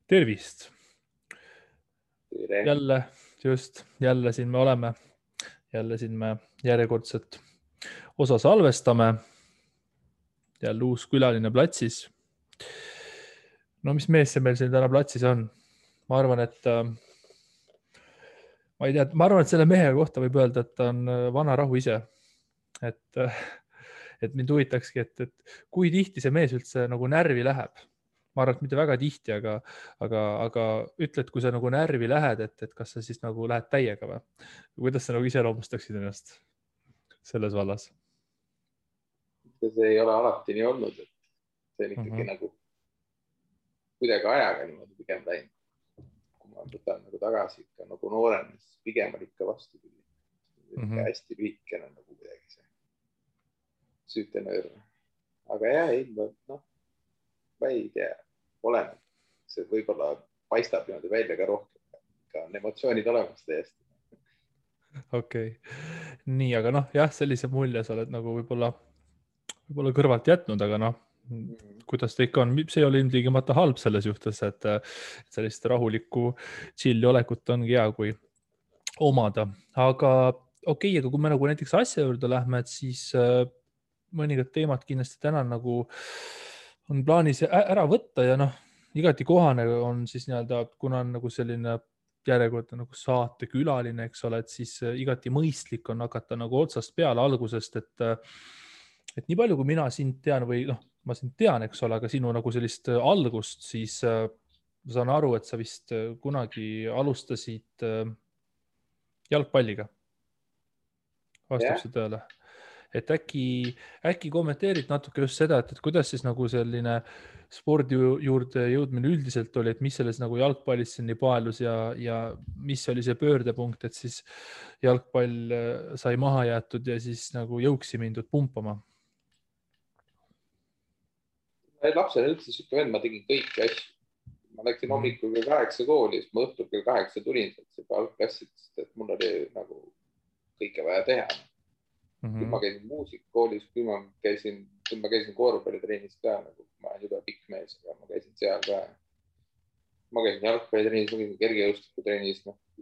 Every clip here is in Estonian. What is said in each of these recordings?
Tervist! Tere. Jälle siin me oleme. Jälle siin me järjekordset osa salvestame. Jälle uus külaline platsis. No mis mees see meil siin täna platsis on? Ma arvan, et selle mehe kohta võib öelda, et ta on vana rahu ise. Et mind huvitakski, et kui tihti see mees üldse nagu närvi läheb. Ma arvan, et mitte väga tihti, aga ütled, kui sa nagu närvi lähed, et kas sa siis nagu lähed täiega või? Kuidas sa nagu iseloomustaksid ennast selles vallas? See ei ole alati nii olnud, et see on ikkagi nagu kuidagi ajaga niimoodi pigem läinud. Kui ma võtan nagu tagasi ikka nagu noorem, siis pigem on ikka vastupidi. Hästi lühikene nagu kuidagi see süütenöör. Aga jah, ma ei tea, oleneb. See võib-olla paistab niimoodi välja ka rohkem. Ka on emotsioonid olemas täiesti. Okei. Nii, aga jah, sellise mulje sa oled nagu võib-olla kõrvalt jätnud, aga kuidas ta ikka on, see ei ole ilmtingimata halb selles juhtes, et sellist rahulikku chilli olekut ongi hea, kui omada. Aga okei, aga kui me nagu näiteks asja juurde lähme, et siis mõningad teemad kindlasti täna nagu on plaanis ära võtta ja igati kohane on siis kuna on nagu selline järjekordne nagu saatekülaline, eks ole, et siis igati mõistlik on hakata nagu otsast peale algusest, et nii palju, kui mina sind tean või ma sind tean, eks ole, aga sinu nagu sellist algust, siis ma saan aru, et sa vist kunagi alustasid jalgpalliga. Vastab see tõele. Et äkki kommenteerid natuke just seda, et kuidas siis nagu selline spordi juurde jõudmine üldiselt oli, et mis selles nagu jalgpallis nii paelus ja mis oli see pöördepunkt, et siis jalgpall sai maha jäetud ja siis nagu jõuksi mindud pumpama? Lapsena üldse siuke vend, ma tegin kõiki asju. Ma läksin hommikul kell 8 kooli, siis ma õhtul kell 8 tulin sealt algklassidest, et mul oli nagu kõike vaja teha. Kui ma käisin muusikakoolis, kui ma käisin korvpallitrennis ka, nagu ma olen juba pikk mees, aga ma käisin seal ka. Ma käisin jalgpallitrennis, ma käisin kergejõustikutrennis,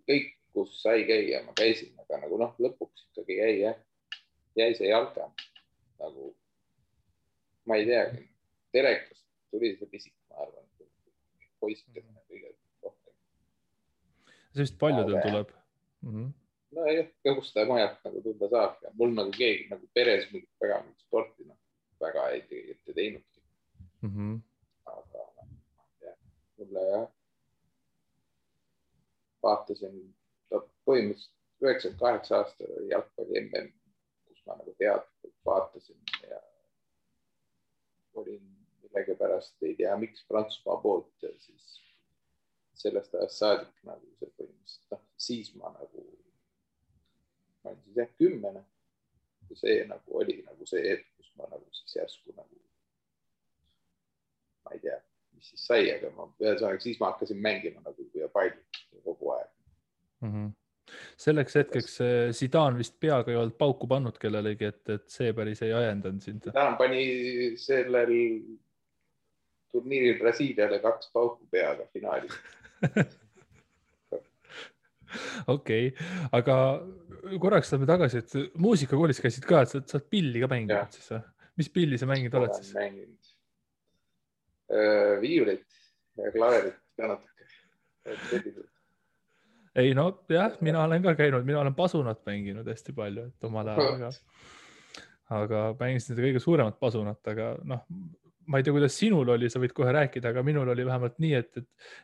kõik, kus sai käia, ma käisin, aga nagu lõpuks ikkagi jäi see jalka. Nagu, ma ei teagi, telekast tuli see pisik, ma arvan, poistkene kõige rohkem. See vist paljudel tuleb. No jah, kus ta majalt nagu tunda saab. Ja mul nagu keegi nagu peres mingit väga mingit sporti väga ei teinudki. Aga mulle vaatasin põhimõtteliselt 98 aastal oli jalgpalli MM, kus ma nagu teadlikult vaatasin ja olin millegipärast, ei tea miks Prantsusmaa poolt ja siis sellest ajast saadik nagu see põhimõtteliselt, siis ma nagu ma olin siis 10 ja see nagu oli nagu see hetk, kus ma nagu siis järsku nagu ma ei tea, mis siis sai, aga siis ma hakkasin mängima nagu ja palju kogu aeg. Selleks hetkeks Zidane vist peaga ei olnud pauku pannud kellelegi, et see päris ei ajendanud sind. Zidane pani sellel turniiril Brasiiliale 2 pauku peaga finaalis. Okei, aga korraks saame tagasi, et muusikakoolis käisid ka, et sa oled pilli ka mänginud siis või? Mis pilli sa mänginud oled siis? Olen mänginud viiulit ja klaverit ka natuke. Ei jah, mina olen ka käinud, mina olen pasunat mänginud hästi palju, et omal ajal, aga mängisin seda kõige suuremat pasunat, aga ma ei tea, kuidas sinul oli, sa võid kohe rääkida, aga minul oli vähemalt nii, et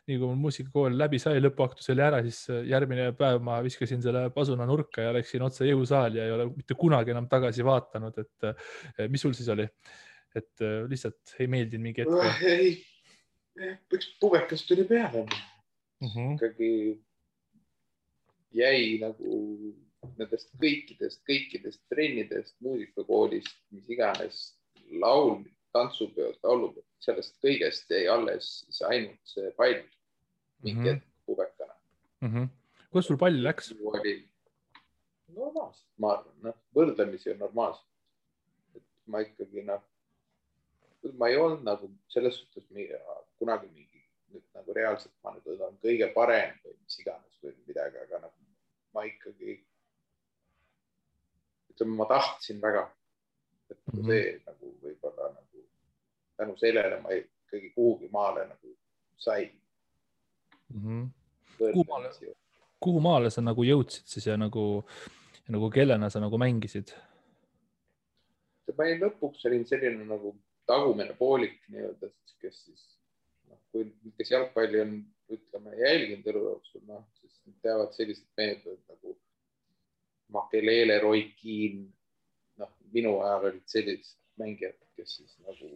nii kui mul muusikakool läbi sai, lõpuaktus oli ära, siis järgmine päev ma viskasin selle pasuna nurka ja läksin otse jõusaali ja ei ole mitte kunagi enam tagasi vaatanud, et mis sul siis oli? Et lihtsalt ei meeldinud mingi hetk? Ei, üks pubekas tuli peale. Ikkagi jäi nagu nendest kõikidest trennidest, muusikakoolist, mis iganes laul, tantsupeod, laulupeod, sellest kõigest jäi alles ainult see pall mingi hetk pubekana. Kus sul pall läks? Normaalselt, ma arvan, võrdlemisi on normaalselt. Ma ikkagi, ma ei olnud nagu selles suhtes kunagi mingi nagu reaalselt ma nüüd olen kõige parem või mis iganes või midagi, aga nagu ma ikkagi, ütleme, ma tahtsin väga, et see nagu võib-olla nagu tänu sellele ma ikkagi kuhugi maale nagu sain. Kuhu maale sa nagu jõudsid siis ja nagu kellena sa nagu mängisid? Ma lõpuks olin selline nagu tagumine poolik nii-öelda, kes siis, kes jalgpalli on, ütleme, jälginud elu jooksul, siis teavad sellised mehed nagu Makelele, Roy Keane, minu ajal olid sellised mängijad, kes siis nagu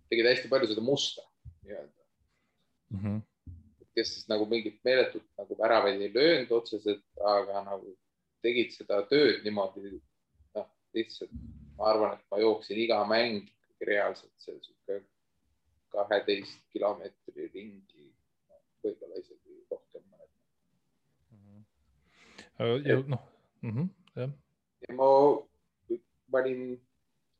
tegid hästi palju seda musta nii-öelda. Kes siis nagu mingit meeletut nagu väravaid ei löönud otseselt, aga nagu tegid seda tööd niimoodi, lihtsalt ma arvan, et ma jooksin iga mäng reaalselt see 12 kilomeetri ringi, võib-olla isegi rohkem mõned. Ja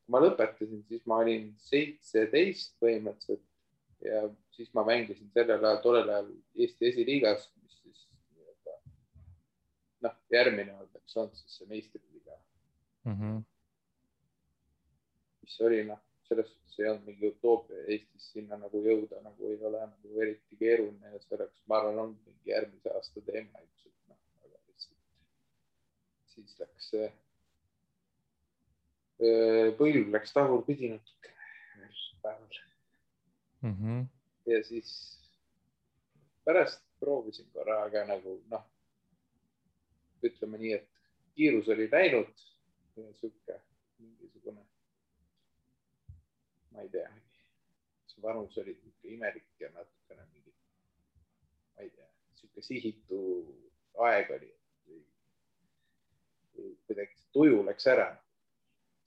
ma lõpetasin, siis ma olin 17 põhimõtteliselt ja siis ma mängisin tollel ajal Eesti esiliigas, mis siis järgmine oleks olnud siis see meistriliiga. Mis oli, selles suhtes ei olnud mingi utoopia Eestis sinna nagu jõuda, nagu ei ole nagu eriti keeruline ja selleks, ma arvan, on mingi järgmise aasta teema ilmselt, aga lihtsalt siis läks põlv läks tagurpidi natuke päeval. Ja siis pärast proovisin korra, aga nagu ütleme nii, et kiirus oli läinud ja mingisugune, ma ei tea, see vanus oli imelik ja natukene mingi, ma ei tea, sihuke sihitu aeg oli, kuidagi tuju läks ära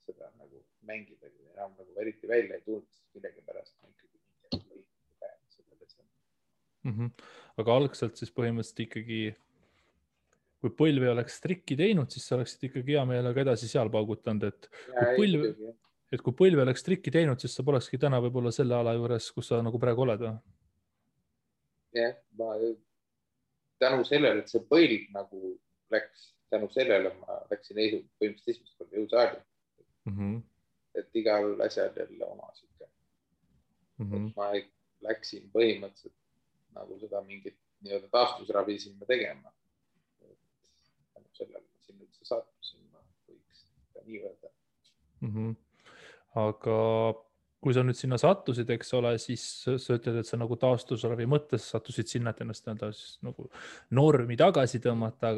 seda nagu mängida, enam nagu eriti välja ei tulnud, millegi pärast ma ikkagi Aga algselt siis põhimõtteliselt ikkagi, kui põlv ei oleks trikki teinud, siis sa oleksid ikkagi hea meelega edasi seal paugutanud, et kui põlv ei oleks trikki teinud, siis sa polekski täna võib-olla selle ala juures, kus sa nagu praegu oled. Jah, tänu sellele, et see põlv nagu läks, tänu sellele ma läksin põhimõtteliselt esimest korda jõusaali. Et igal asjal jälle oma siuke. Ma läksin põhimõtteliselt nagu seda mingit nii-öelda taastusravi sinna tegema. Tänu sellele ma sinna üldse sattusin, ma võiks ka nii öelda. Aga kui sa nüüd sinna sattusid, eks ole, siis sa ütled, et sa nagu taastusravi mõttes sattusid sinna, et ennast nagu normi tagasi tõmmata,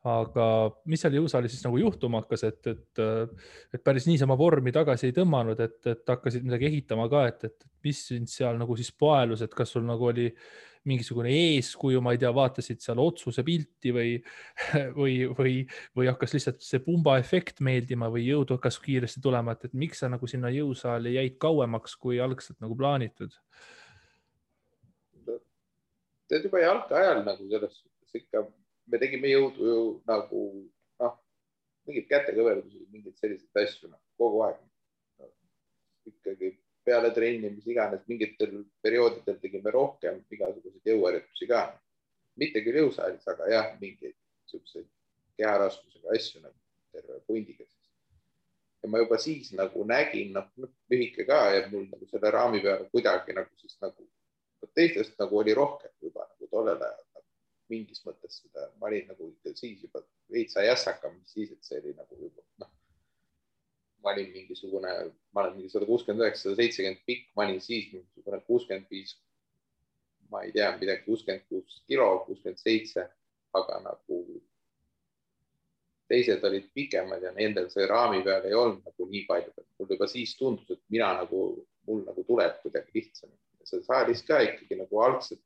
aga mis seal jõusaalis siis nagu juhtuma hakkas, et päris niisama vormi tagasi ei tõmmanud, et hakkasid midagi ehitama ka, et mis sind seal nagu siis paelus, et kas sul nagu oli mingisugune eeskuju, ma ei tea, vaatasid seal otsuse pilti või hakkas lihtsalt see pumba efekt meeldima või jõud hakkas kiiresti tulema, et miks sa nagu sinna jõusaali jäid kauemaks, kui algselt nagu plaanitud? Tead juba jalka ajal nagu selles suhtes ikka me tegime jõudu ju nagu mingid kätekõverdusi, mingid sellised asju kogu aeg. Ikkagi peale trenni, mis iganes, mingitel perioodidel tegime rohkem igasuguseid jõuharjutusi ka. Mitte küll jõusaalis, aga jah, mingeid selliseid keharaskusega asju nagu terve pundiga. Ja ma juba siis nagu nägin, lühike ka ja mul nagu selle raami peale kuidagi nagu siis nagu teistest nagu oli rohkem juba nagu tollel ajal. Mingis mõttes seda, ma olin nagu siis juba veitsa jässakam, siis, et see oli nagu juba, ma olin mingisugune, ma olen mingi 169-170 pikk, ma olin siis mingisugune 65, ma ei tea, midagi 66 kilo, 67, aga nagu teised olid pikemad ja nendel see raami peal ei olnud nagu nii palju, et mul juba siis tundus, et mul nagu tuleb kuidagi lihtsam. See saalis ka ikkagi nagu algselt,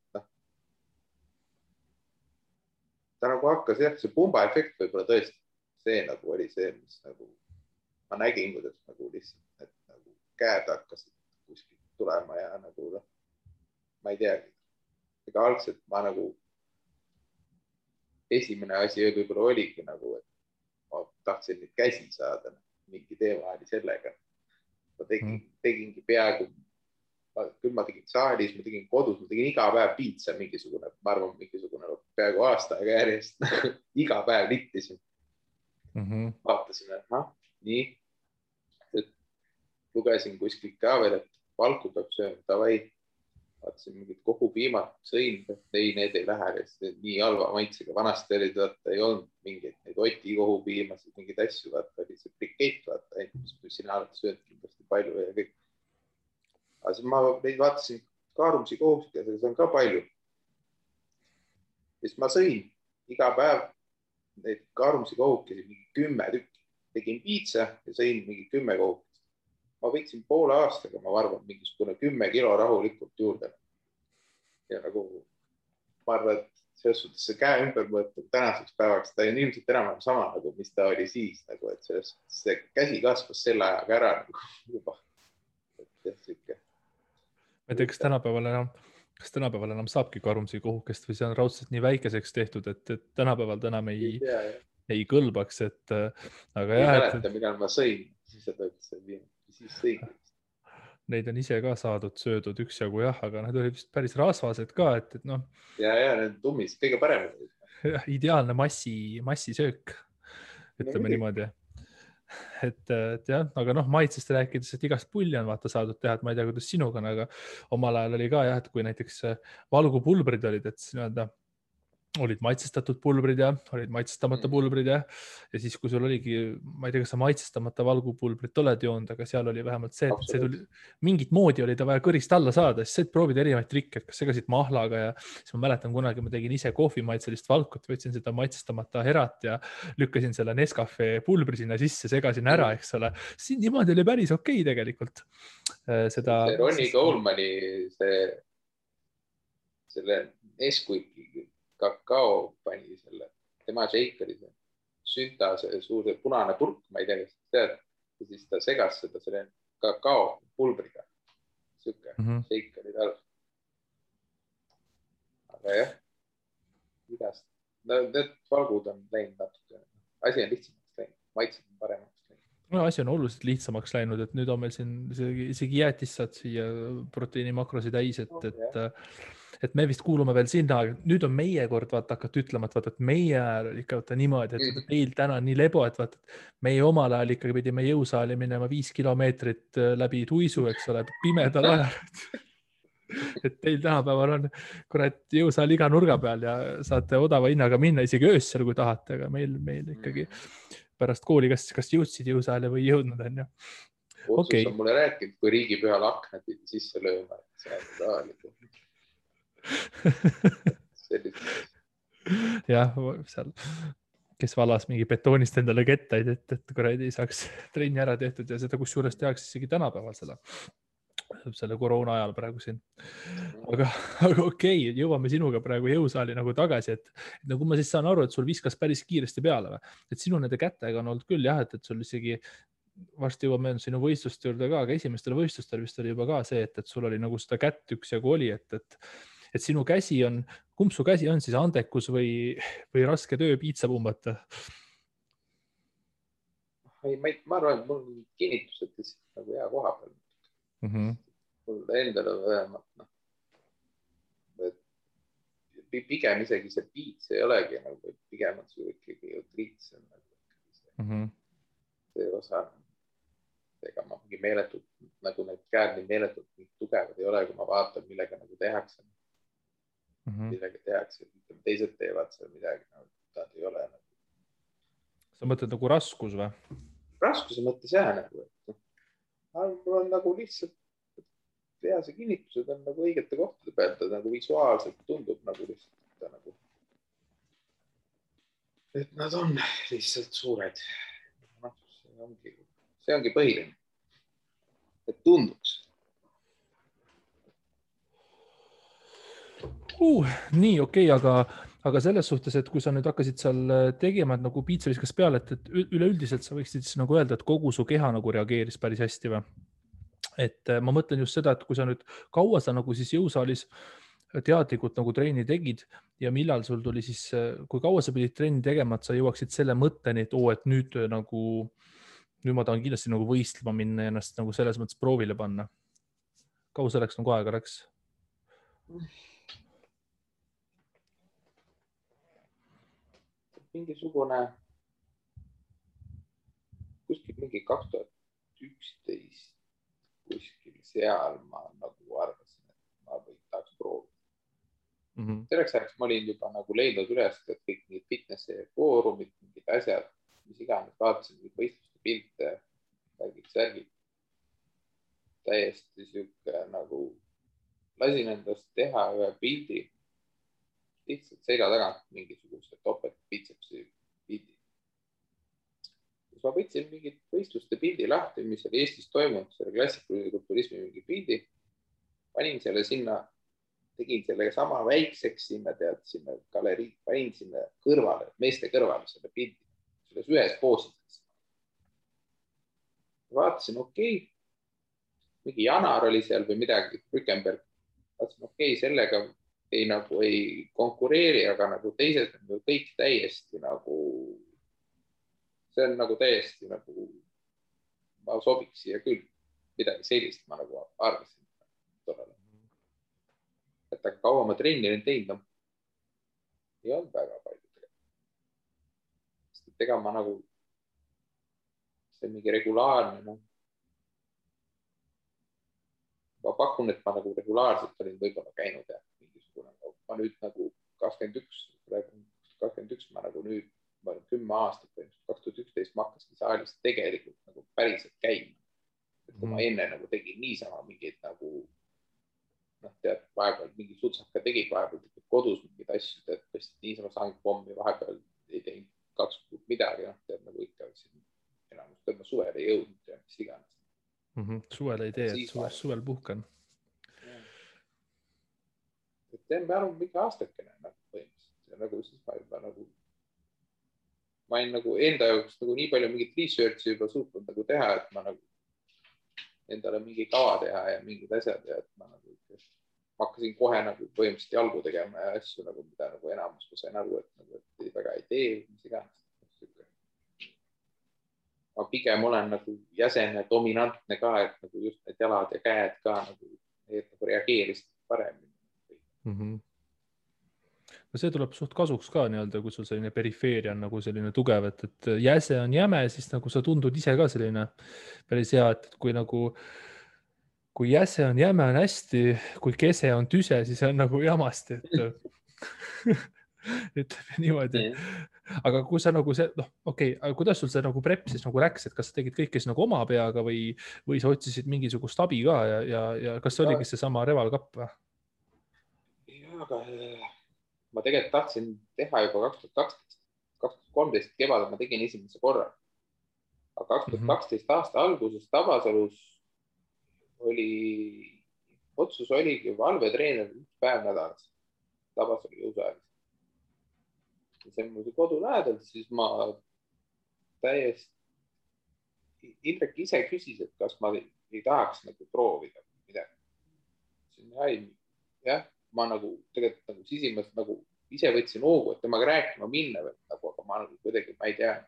ta nagu hakkas, jah, see pumba efekt võib-olla tõesti, see nagu oli see, mis nagu ma nägin, kuidas nagu lihtsalt, et nagu käed hakkasid kuskilt tulema ja nagu, ma ei teagi. Ega algselt ma nagu, esimene asi võib-olla oligi nagu, et ma tahtsin neid käsi saada, mingi teema oli sellega. Ma tegingi peaaegu küll ma tegin saalis, ma tegin kodus, ma tegin iga päev piitsa mingisugune, ma arvan, mingisugune peaaegu aasta aega järjest iga päev littisin. Vaatasin, et nii, et lugesin kuskilt ka veel, et valku peab sööma, davai. Vaatasin mingid kohupiimad, sõin, ei, need ei lähe, nii halva maitsega. Vanasti oli, ei olnud mingeid neid Oti kohupiimasid, mingeid asju, vaata, oli see brikett, vaata, mis sina oled söönud kindlasti palju ja kõik. Aga siis ma neid vaatasin kaarumsi kohustusega, see on ka palju. Siis ma sõin iga päev neid kaarumsi kohukesi, mingi 10 tükki. Tegin piitsa ja sõin mingi 10 kohukesi. Ma võiksin poole aastaga, ma arvan, mingisugune 10 kilo rahulikult juurde. Ja nagu, ma arvan, et selles suhtes see käe ümber mõõtud tänaseks päevaks, ta on ilmselt enam sama, nagu, mis ta oli siis, nagu, et selles suhtes see käsi kasvas selle ajaga ära nagu, juba. Ma ei tea, kas tänapäeval enam saabki karumsi kohukest või see on raudselt nii väikeseks tehtud, et tänapäeval enam ei kõlbaks, et aga ei mäleta, millal ma sõin, siis seda ütles, siis sõin. Neid on ise ka saadud, söödud üksjagu jah, aga need olid vist päris rasvased ka, et noh. Ja, need tummis, kõige parem. Ideaalne massisöök, ütleme niimoodi. Et jah, aga noh, maitsest rääkides, et igast pulli on vaata saadud teha, et ma ei tea, kuidas sinuga on, aga omal ajal oli ka jah, et kui näiteks valgupulbrid olid, et nii-öelda olid maitsestatud pulbrid ja olid maitsestamata pulbrid ja siis, kui sul oligi, ma ei tea, kas sa maitsestamata valgupulbrit oled joonud, aga seal oli vähemalt see, et see tuli, mingit moodi oli ta vaja kõrist alla saada, siis said proovida erinevaid trikke, et kas segasid mahlaga ja siis ma mäletan kunagi, ma tegin ise kohvimaitselist valkut, võtsin seda maitsestamata herat ja lükkasin selle Nescafe pulbri sinna sisse, segasin ära, eks ole. Siin niimoodi oli päris okei tegelikult. See Ronnie Colemani selle Nesquiki kakao pani selle, tema shakeri, sünta, see suur punane purk, ma ei tea, kas tead, ja siis ta segas seda selle kakao pulbriga. Siuke shakeri tal. Aga jah, igast. Need valgud on läinud natuke. Asi on lihtsamaks läinud, maitsed on paremaks läinud. No, asi on oluliselt lihtsamaks läinud, et nüüd on meil siin isegi jäätis saad siia proteiini makrosi täis, et me vist kuulume veel sinna, nüüd on meie kord vaata hakata ütlema, et meie ajal oli ikka niimoodi, et meil täna on nii lebo, et vaata, meie omal ajal ikkagi pidime jõusaali minema 5 kilomeetrit läbi tuisu, eks ole, pimedal ajal. Et teil tänapäeval on kurat jõusaal iga nurga peal ja saate odava hinnaga minna isegi öössel, kui tahate, aga meil ikkagi pärast kooli, kas jõudsid jõusaale või jõudnud on ju. Otsus on mulle rääkinud, kui riigipühal aknad sisse lööma, et see on tahalikult. jah, seal kes valas mingi betoonist endale kettaid, et kuradi saaks trenni ära tehtud ja seda kusjuures tehakse isegi tänapäeval selle koroona ajal praegu siin. Aga okei, jõuame sinuga praegu jõusaali nagu tagasi, et nagu ma siis saan aru, et sul viskas päris kiiresti peale või? Et sinu nende kätega on olnud küll jah, et sul isegi varsti jõuame sinu võistluste juurde ka, aga esimestel võistlustel vist oli juba ka see, et sul oli nagu seda kätt üksjagu oli, et sinu käsi on, kumb su käsi on siis andekus või raske töö piitsa pumbata? Ma arvan, et mul on kinnitused lihtsalt nagu hea koha peal. Mul endal on vähemalt, pigem isegi see piits ei olegi nagu, pigem on su ikkagi triits on see osa. Ega ma mingi meeletult, nagu need käed nii meeletult nii tugevad ei ole, kui ma vaatan, millega nagu tehakse. Millega tehakse, teised teevad seal midagi, nad ei ole. Sa mõtled nagu raskus või? Raskuse mõttes jah, nagu, et mul on nagu lihtsalt tehase kinnitused on nagu õigete kohtade peal, ta nagu visuaalselt tundub nagu lihtsalt nagu, et nad on lihtsalt suured. See ongi põhiline, et tunduks. Nii, okei, aga selles suhtes, et kui sa nüüd hakkasid seal tegema, et nagu piitsa viskas peale, et üleüldiselt sa võiksid siis nagu öelda, et kogu su keha nagu reageeris päris hästi või? Et ma mõtlen just seda, et kui sa nüüd kaua sa nagu siis jõusaalis teadlikult nagu treeni tegid ja millal sul tuli siis, kui kaua sa pidid treeni tegema, et sa jõuaksid selle mõtteni, et nüüd ma tahan kindlasti nagu võistlema minna ja ennast nagu selles mõttes proovile panna. kaua selleks nagu aega läks? Mingisugune kuskil mingi 2011 kuskil seal ma nagu arvasin, et ma tahaks proovida. Selleks ajaks ma olin juba nagu leidnud üles, et kõik mingid fitnessi foorumid, mingid asjad, mis iganes, vaatasin mingid võistluste pilte, kõik särgid. Täiesti sihuke nagu lasin endast teha ühe pildi lihtsalt selja tagant mingisuguse topelt bitsepsi pildi. Siis ma võtsin mingid võistluste pildi lahti, mis oli Eestis toimunud, selle klassikulise kulturismi mingi pildi, panin selle sinna, tegin selle sama väikseks sinna, sinna galerii, panin sinna kõrvale, meeste kõrvale selle pildi, selles ühes poosis. Vaatasin, okei, mingi Janar oli seal või midagi, Rückenberg, vaatasin, okei, sellega ei konkureeri, aga nagu teised on kõik täiesti nagu, see on nagu täiesti nagu, ma sobiks siia küll, midagi sellist ma nagu arvasin tollele. Et aga kaua ma trenni olen teinud, ei olnud väga palju tegelikult. Sest ega ma nagu, see mingi regulaarne, ma pakun, et ma nagu regulaarselt olin võib-olla käinud ja mingisugune, ma nüüd nagu 21 ma nagu nüüd, ma olen 10 aastat, 2011 ma hakkasin saalis tegelikult nagu päriselt käima. Et kui ma enne nagu tegin niisama mingeid nagu, tead, vahepeal mingi sutsaka tegid vahepeal kodus mingeid asju, et niisama saangi pommi, vahepeal ei teinud 2 kuud midagi, tead nagu ikka enamus, et ma suvel ei jõudnud ja mis iganes. Suvel ei tee, et suvel puhkan. Et teen ma arvan mingi aastakene nagu põhimõtteliselt ja nagu siis ma juba nagu, ma olin nagu enda jaoks nagu nii palju mingit research'i juba suutnud nagu teha, et ma nagu endale mingi kava teha ja mingid asjad ja et ma nagu ma hakkasin kohe nagu põhimõtteliselt jalgu tegema ja asju nagu, mida nagu enamus ma sain aru, et nagu, et väga ei tee, mis iganes. Ma pigem olen nagu jäsene, dominantne ka, et nagu just need jalad ja käed ka nagu reageerisid paremini. No see tuleb suht kasuks ka nii-öelda, kui sul selline perifeeria on nagu selline tugev, et jäse on jäme, siis nagu sa tundud ise ka selline päris hea, et kui jäse on jäme on hästi, kui kese on tüse, siis on nagu jamasti, et ütleme niimoodi. Aga kui sa nagu see, okei, aga kuidas sul see nagu prep siis nagu läks, et kas sa tegid kõike siis nagu oma peaga või sa otsisid mingisugust abi ka ja kas see oligi seesama Reval-Cup või? Jaa, aga ma tegelikult tahtsin teha juba 2013 kevadel ma tegin esimese korra. Aga 2012 aasta alguses Tabasalus otsus oligi valvetreener 1 päev nädalas Tabasalu jõusaalis. See on mul kodu lähedal, siis ma täiesti, Indrek ise küsis, et kas ma ei tahaks nagu proovida midagi. Jah, ma nagu tegelikult nagu sisimast nagu ise võtsin hoogu, et temaga rääkima minna, nagu, aga ma nagu kuidagi, ma ei tea,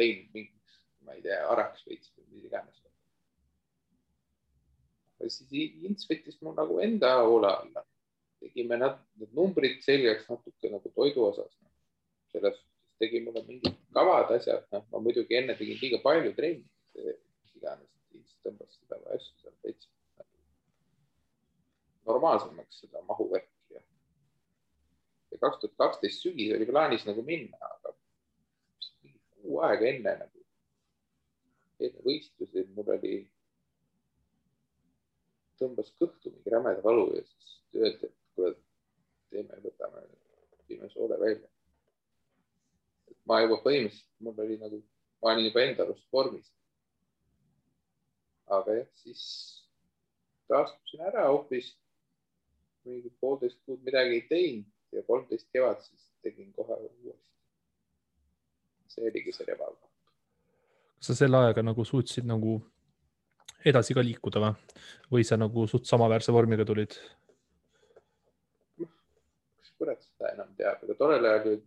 lõin mingiks, ma ei tea, araks võitsin või mis iganes. Siis Ints võttis mul nagu enda hoole alla. Tegime need numbrid selgeks natuke nagu toidu osas. Selles tegi mulle mingid kavad asjad. Ma muidugi enne tegin liiga palju trenni. Mis iganes, siis tõmbas seda asju seal täitsa normaalsemaks seda mahuvärki. Ja 2012 sügis oli plaanis nagu minna, aga kuu aega enne võistlusi mul oli tõmbas kõhtu mingi rämeda valu ja siis öeldi, et kuule, võtame soole välja. Et ma juba põhimõtteliselt, mul oli nagu, ma olin juba enda arust vormis. Aga jah, siis taastusin ära hoopis, mingi 1,5 kuud midagi ei teinud ja 13 kevad siis tegin kohe uuesti. See oligi see Reval-Cup. Kas sa selle ajaga nagu suutsid nagu edasi ka liikuda või sa nagu suht samaväärse vormiga tulid? Kas kurat seda enam teab, aga tollel ajal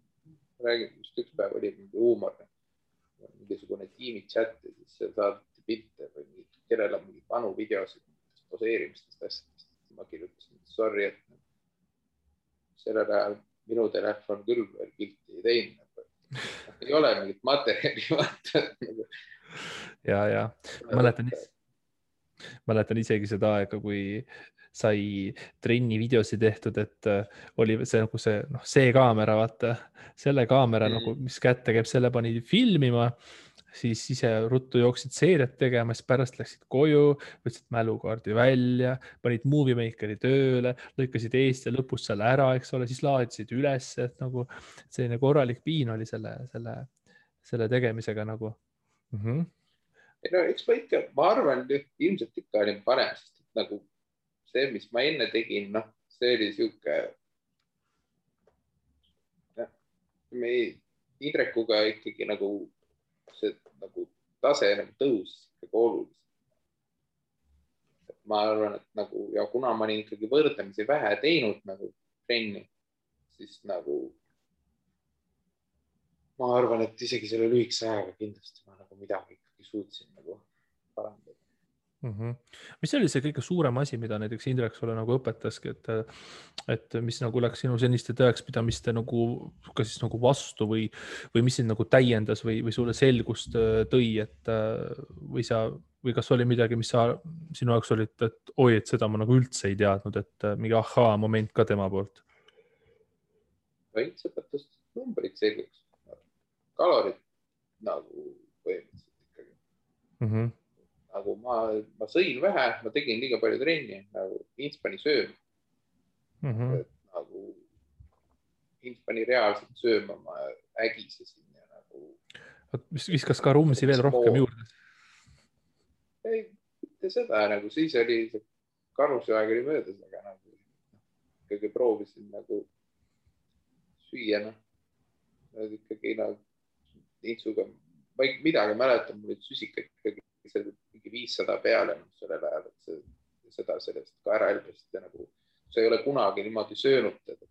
räägin, just üks päev oli mingi huumor, mingisugune tiimi chat ja siis seal saadeti pilte või kellel on mingi vanu videosid poseerimistest asjadest. Ma kirjutasin, sorry, et sellel ajal minu telefon küll veel pilti ei teinud. Ei ole mingit materjali vaata. ja mäletan isegi seda aega, kui sai trenni videosid tehtud, et oli see nagu see kaamera, vaata, selle kaamera nagu, mis kätte käib, selle pani filmima, siis ise ruttu jooksid seeriat tegema, siis pärast läksid koju, võtsid mälukaardi välja, panid Movie Makeri tööle, lõikasid eest ja lõpus selle ära, eks ole, siis laadisid üles, et nagu selline korralik piin oli selle tegemisega nagu. No eks ma ikka, ma arvan, ilmselt ikka olin parem, sest nagu see, mis ma enne tegin, noh, see oli sihuke, me Indrekuga ikkagi nagu see nagu tase nagu tõusis ikkagi oluliselt. Ma arvan, et nagu, ja kuna ma olin ikkagi võrdlemisi vähe teinud nagu trenni, siis nagu ma arvan, et isegi selle lühikese ajaga kindlasti ma nagu midagi ikkagi suutsin nagu parandada. Mis oli see kõige suurem asi, mida näiteks Indrek sulle nagu õpetaski, et mis nagu läks sinu seniste tõekspidamiste nagu kas siis nagu vastu või mis sind nagu täiendas või sulle selgust tõi, et või kas oli midagi, mis sa sinu jaoks olid, et oi, et seda ma nagu üldse ei teadnud, et mingi ahaa moment ka tema poolt? Veits õpetas numbrid selgeks. Kalorid nagu põhimõtteliselt ikkagi. Nagu ma sõin vähe, ma tegin liiga palju trenni, nagu Ints pani sööma. Nagu Ints pani reaalselt sööma, ma ägisesin ja nagu. Viskas ka rumsi veel rohkem juurde? Ei, mitte seda, nagu siis oli see karuse aeg oli möödas, aga nagu ikkagi proovisin nagu süüa, ikkagi nagu Intsuga, ma ei midagi mäletan, mul olid süsikad ikkagi mingi 500 peale sellel ajal, et seda sellest ka ära elbest ja nagu sa ei ole kunagi niimoodi söönud teda.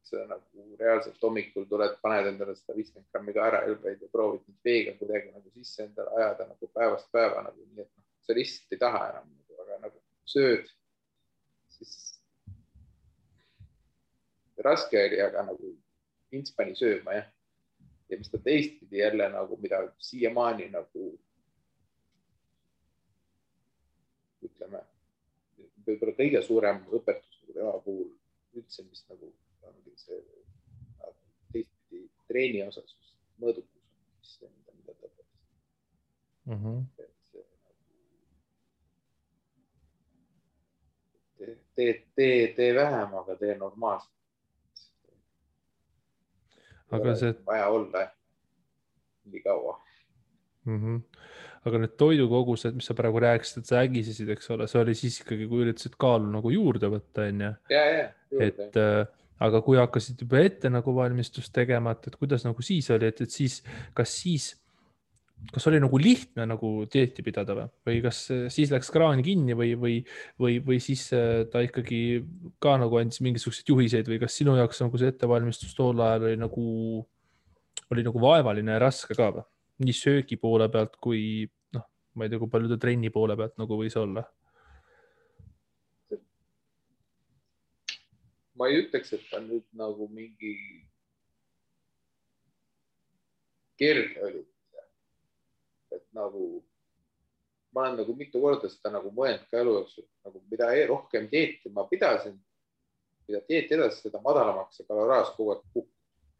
See nagu reaalselt hommikul tuled, paned endale 150 grammi ka ära elbeid ja proovid nüüd veega kuidagi nagu sisse endale ajada nagu päevast päeva nagu nii, et sa lihtsalt ei taha enam, aga nagu sööd, siis raske oli, aga nagu Ints pani sööma, jah. Ja mis ta teistpidi jälle nagu, mida siiamaani nagu ütleme, võib-olla kõige suurem õpetus tema puhul üldse, mis nagu ongi see teistpidi treeni osas mõõdukus, mida ta õpetas. Tee vähem, aga tee normaalselt. Aga see vaja olla nii kaua. Aga need toidukogused, mis sa praegu rääkisid, et sa ägisesid, eks ole, see oli siis ikkagi, kui üritasid kaalu nagu juurde võtta, on ju? Ja, aga kui hakkasid juba ette nagu valmistust tegema, et kuidas nagu siis oli, et siis, kas oli nagu lihtne nagu dieeti pidada või kas siis läks kraan kinni või siis ta ikkagi ka nagu andis mingisuguseid juhiseid või kas sinu jaoks nagu see ettevalmistus tol ajal oli nagu vaevaline ja raske ka või? Nii söögi poole pealt kui ma ei tea, kui palju ta trenni poole pealt nagu võis olla? Ma ei ütleks, et ta nüüd nagu mingi kerge oli. Et nagu ma olen nagu mitu korda seda nagu mõelnud ka elu jooksul, nagu mida rohkem dieeti ma pidasin, mida dieeti edasi, seda madalamaks see kaloraas kogu aeg kukkus.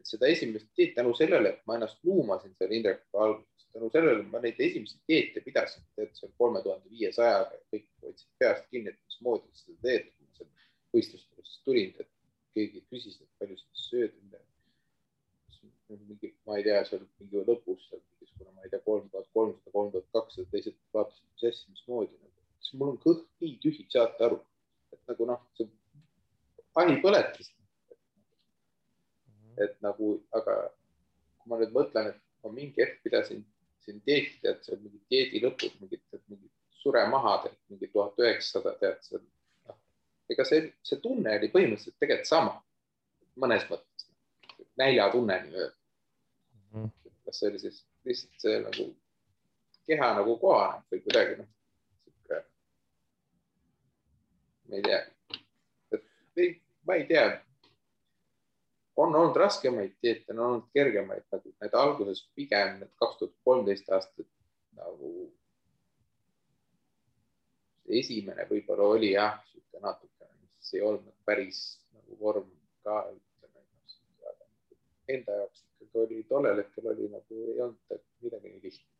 Seda esimest dieeti tänu sellele, et ma ennast luumasin seal Indrekuga alguses, tänu sellele ma neid esimesi dieete pidasin, et see 3500 kõik võtsid peast kinni, et mis moodi seda teed, kui ma seal võistlustest tulin, et keegi küsis, et palju seda sööd, ma ei tea, seal mingi lõpus, kuna ma ei tea, 3300, 3200, teised vaatasid, mis asja, mismoodi. Siis mul on kõht nii tühi, saate aru, et nagu see ahi põletas. Et nagu, aga kui ma nüüd mõtlen, et ma mingi hetk pidasin siin dieeti, tead, seal mingi dieedi lõpus, mingi suremaha, mingi 1900, tead, seal. Ega see tunne oli põhimõtteliselt tegelikult sama, mõnes mõttes, näljatunne nii öelda. Kas see oli siis lihtsalt see nagu keha nagu kohaneb või kuidagi ma ei tea. Ma ei tea. On olnud raskemaid dieete, on olnud kergemaid, nagu need alguses pigem need 2013 aastat nagu esimene võib-olla oli jah, natuke, mis ei olnud päris nagu vorm ka enda jaoks ikkagi oli, tollel hetkel oli nagu ei olnud midagi nii lihtne.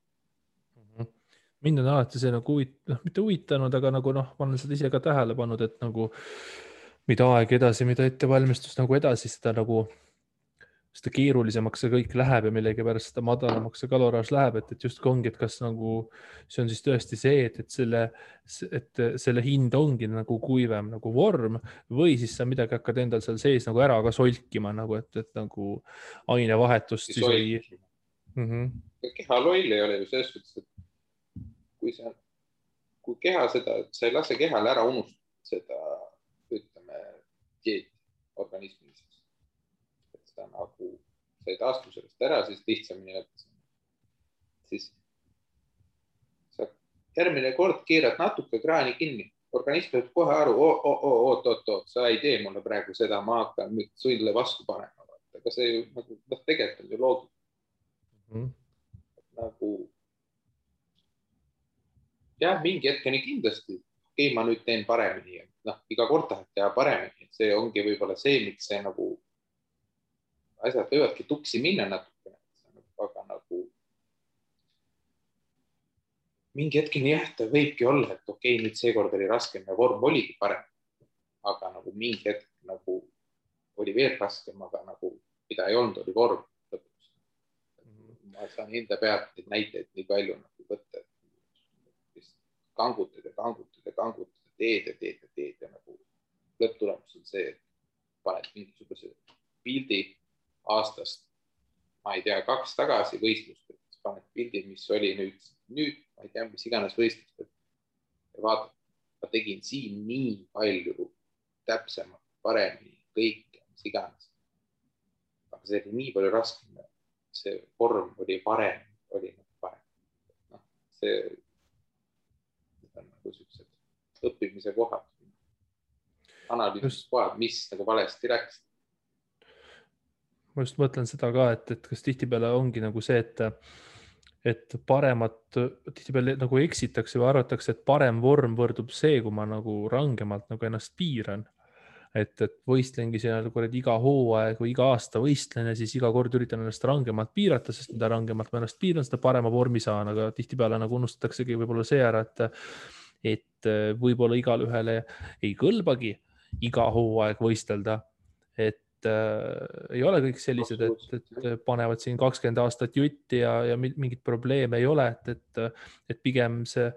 Mind on alati see nagu mitte huvitanud, aga nagu ma olen seda ise ka tähele pannud, et nagu mida aeg edasi, mida ettevalmistus nagu edasi, seda keerulisemaks see kõik läheb ja millegipärast seda madalamaks see kaloraaž läheb, et justkui ongi, et kas nagu see on siis tõesti see, et selle hind ongi nagu kuivem nagu vorm või siis sa midagi hakkad endal seal sees nagu ära ka solkima nagu, et nagu ainevahetust siis või. Keha loll ei ole ju selles suhtes, et kui keha seda, sa ei lase kehale ära unustada seda, ütleme, dieeti organismis. Nagu sa ei taastu sellest ära, siis lihtsamini lõpetada. Siis sa järgmine kord keerad natuke kraani kinni. Organism peab kohe aru, oot, sa ei tee mulle praegu seda, ma hakkan nüüd sulle vastu panema. Aga see ju nagu, tegelikult on ju loogika. Nagu jah, mingi hetkeni kindlasti, ma nüüd teen paremini. Iga kord tahad teha paremini. See ongi võib-olla see, miks see nagu asjad võivadki tuksi minna natuke, aga nagu mingi hetkeni jah, ta võibki olla, et okei, nüüd seekord oli raskem ja vorm oligi parem, aga nagu mingi hetk nagu oli veel raskem, aga nagu mida ei olnud, oli vorm lõpuks. Ma saan enda pealt neid näiteid nii palju nagu võtta, et kangutad, teed ja nagu lõpptulemus on see, et paned mingisuguse pildi aastast, ma ei tea, 2 tagasi võistlust, et paned pildi, mis oli nüüd, ma ei tea, mis iganes võistlust, ja vaatad, ma tegin siin nii palju täpsemalt, paremini, kõike, mis iganes. Aga see oli nii palju raskem, see vorm oli parem, see on nagu sellised õppimise kohad, analüüsimise kohad, mis nagu valesti läks. Ma just mõtlen seda ka, et kas tihtipeale ongi nagu see, et tihtipeale nagu eksitakse või arvatakse, et parem vorm võrdub see, kui ma nagu rangemalt nagu ennast piiran. Et võistlengi seal iga hooaeg või iga aasta võistlen ja siis iga kord üritan ennast rangemalt piirata, sest mida rangemalt ma ennast piiran, seda parema vormi saan, aga tihtipeale nagu unustataksegi võib-olla see ära, et võib-olla igale ühele ei kõlbagi iga hooaeg võistelda, et ei ole kõik sellised, et panevad siin 20 aastat jutti ja mingit probleeme ei ole, et pigem see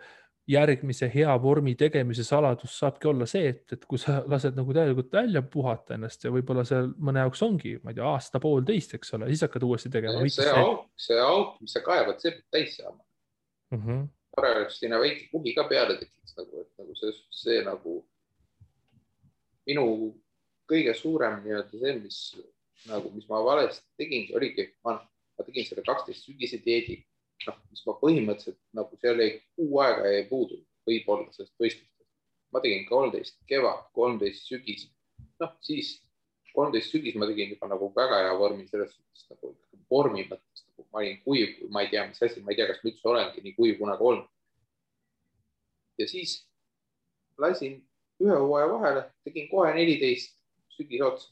järgmise hea vormi tegemise saladus saabki olla see, et kui sa lased nagu täielikult välja puhata ennast ja võib-olla see mõne jaoks ongi, ma ei tea, aasta-poolteist, eks ole, siis hakkad uuesti tegema. See auk, mis sa kaevad, see peab täis saama. Tore oleks sinna väike kuhi ka peale tekiks, nagu see nagu minu kõige suurem see, mis ma valesti tegin, oligi, ma tegin selle 12 sügise dieedi, mis ma põhimõtteliselt nagu seal ei kuu aega ei puudu, võib-olla sellest võistlustest. Ma tegin 13 kevad, 13 sügis. Siis 13 sügis ma tegin juba nagu väga hea vormi selles suhtes, nagu vormi mõttes. Ma olin kuiv, ma ei tea, mis asi, ma ei tea, kas ma üldse olengi nii kuiv kunagi olnud. Ja siis lasin ühe hooaja vahele, tegin kohe 14 sügis otsa,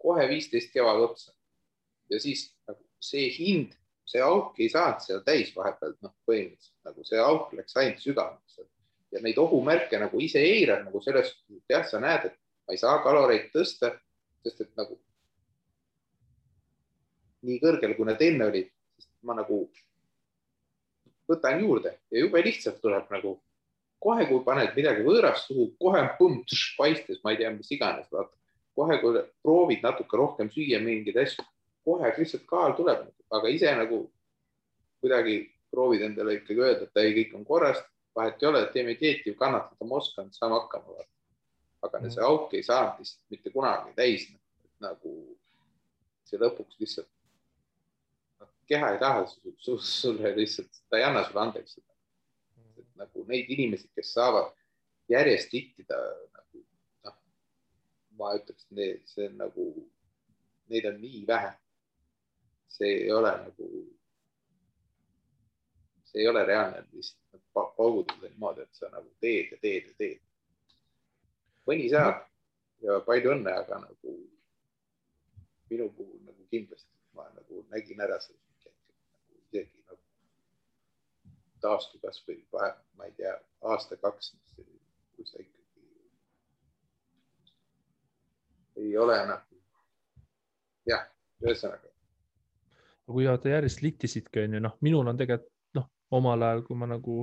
kohe 15 kevad otsa. Ja siis nagu see hind, see auk ei saanud seal täis vahepealt, põhimõtteliselt, nagu see auk läks ainult sügavaks. Ja neid ohumärke nagu ise eirad, nagu selles, jah, sa näed, et ma ei saa kaloreid tõsta, sest et nagu nii kõrgel, kui need enne olid, sest ma nagu võtan juurde ja jube lihtsalt tuleb nagu kohe, kui paned midagi võõrast suhu, kohe paistes, ma ei tea, mis iganes, vaata. Kohe, kui proovid natuke rohkem süüa mingid asju, kohe lihtsalt kaal tuleb, aga ise nagu kuidagi proovid endale ikkagi öelda, et ei, kõik on korrast, vahet ei ole, et teeme dieeti, kannatada ma oskan, saame hakkama. Aga see auk ei saanud lihtsalt mitte kunagi täis. Nagu see lõpuks lihtsalt keha ei taha sulle lihtsalt, ta ei anna sulle andeks seda. Nagu neid inimesi, kes saavad järjest tittida nagu ma ütleks, see on nagu, neid on nii vähe. See ei ole reaalne lihtsalt paugutada niimoodi, et sa nagu teed. Mõni saab ja palju õnne, aga nagu minu puhul nagu kindlasti ma nagu nägin ära selle nagu isegi nagu taastu kas või ma ei tea, aasta-2, kui sa ikkagi ei ole nagu, jah, ühesõnaga. Kui te järjest littisidki, on ju, noh, minul on tegelikult, noh, omal ajal, kui ma nagu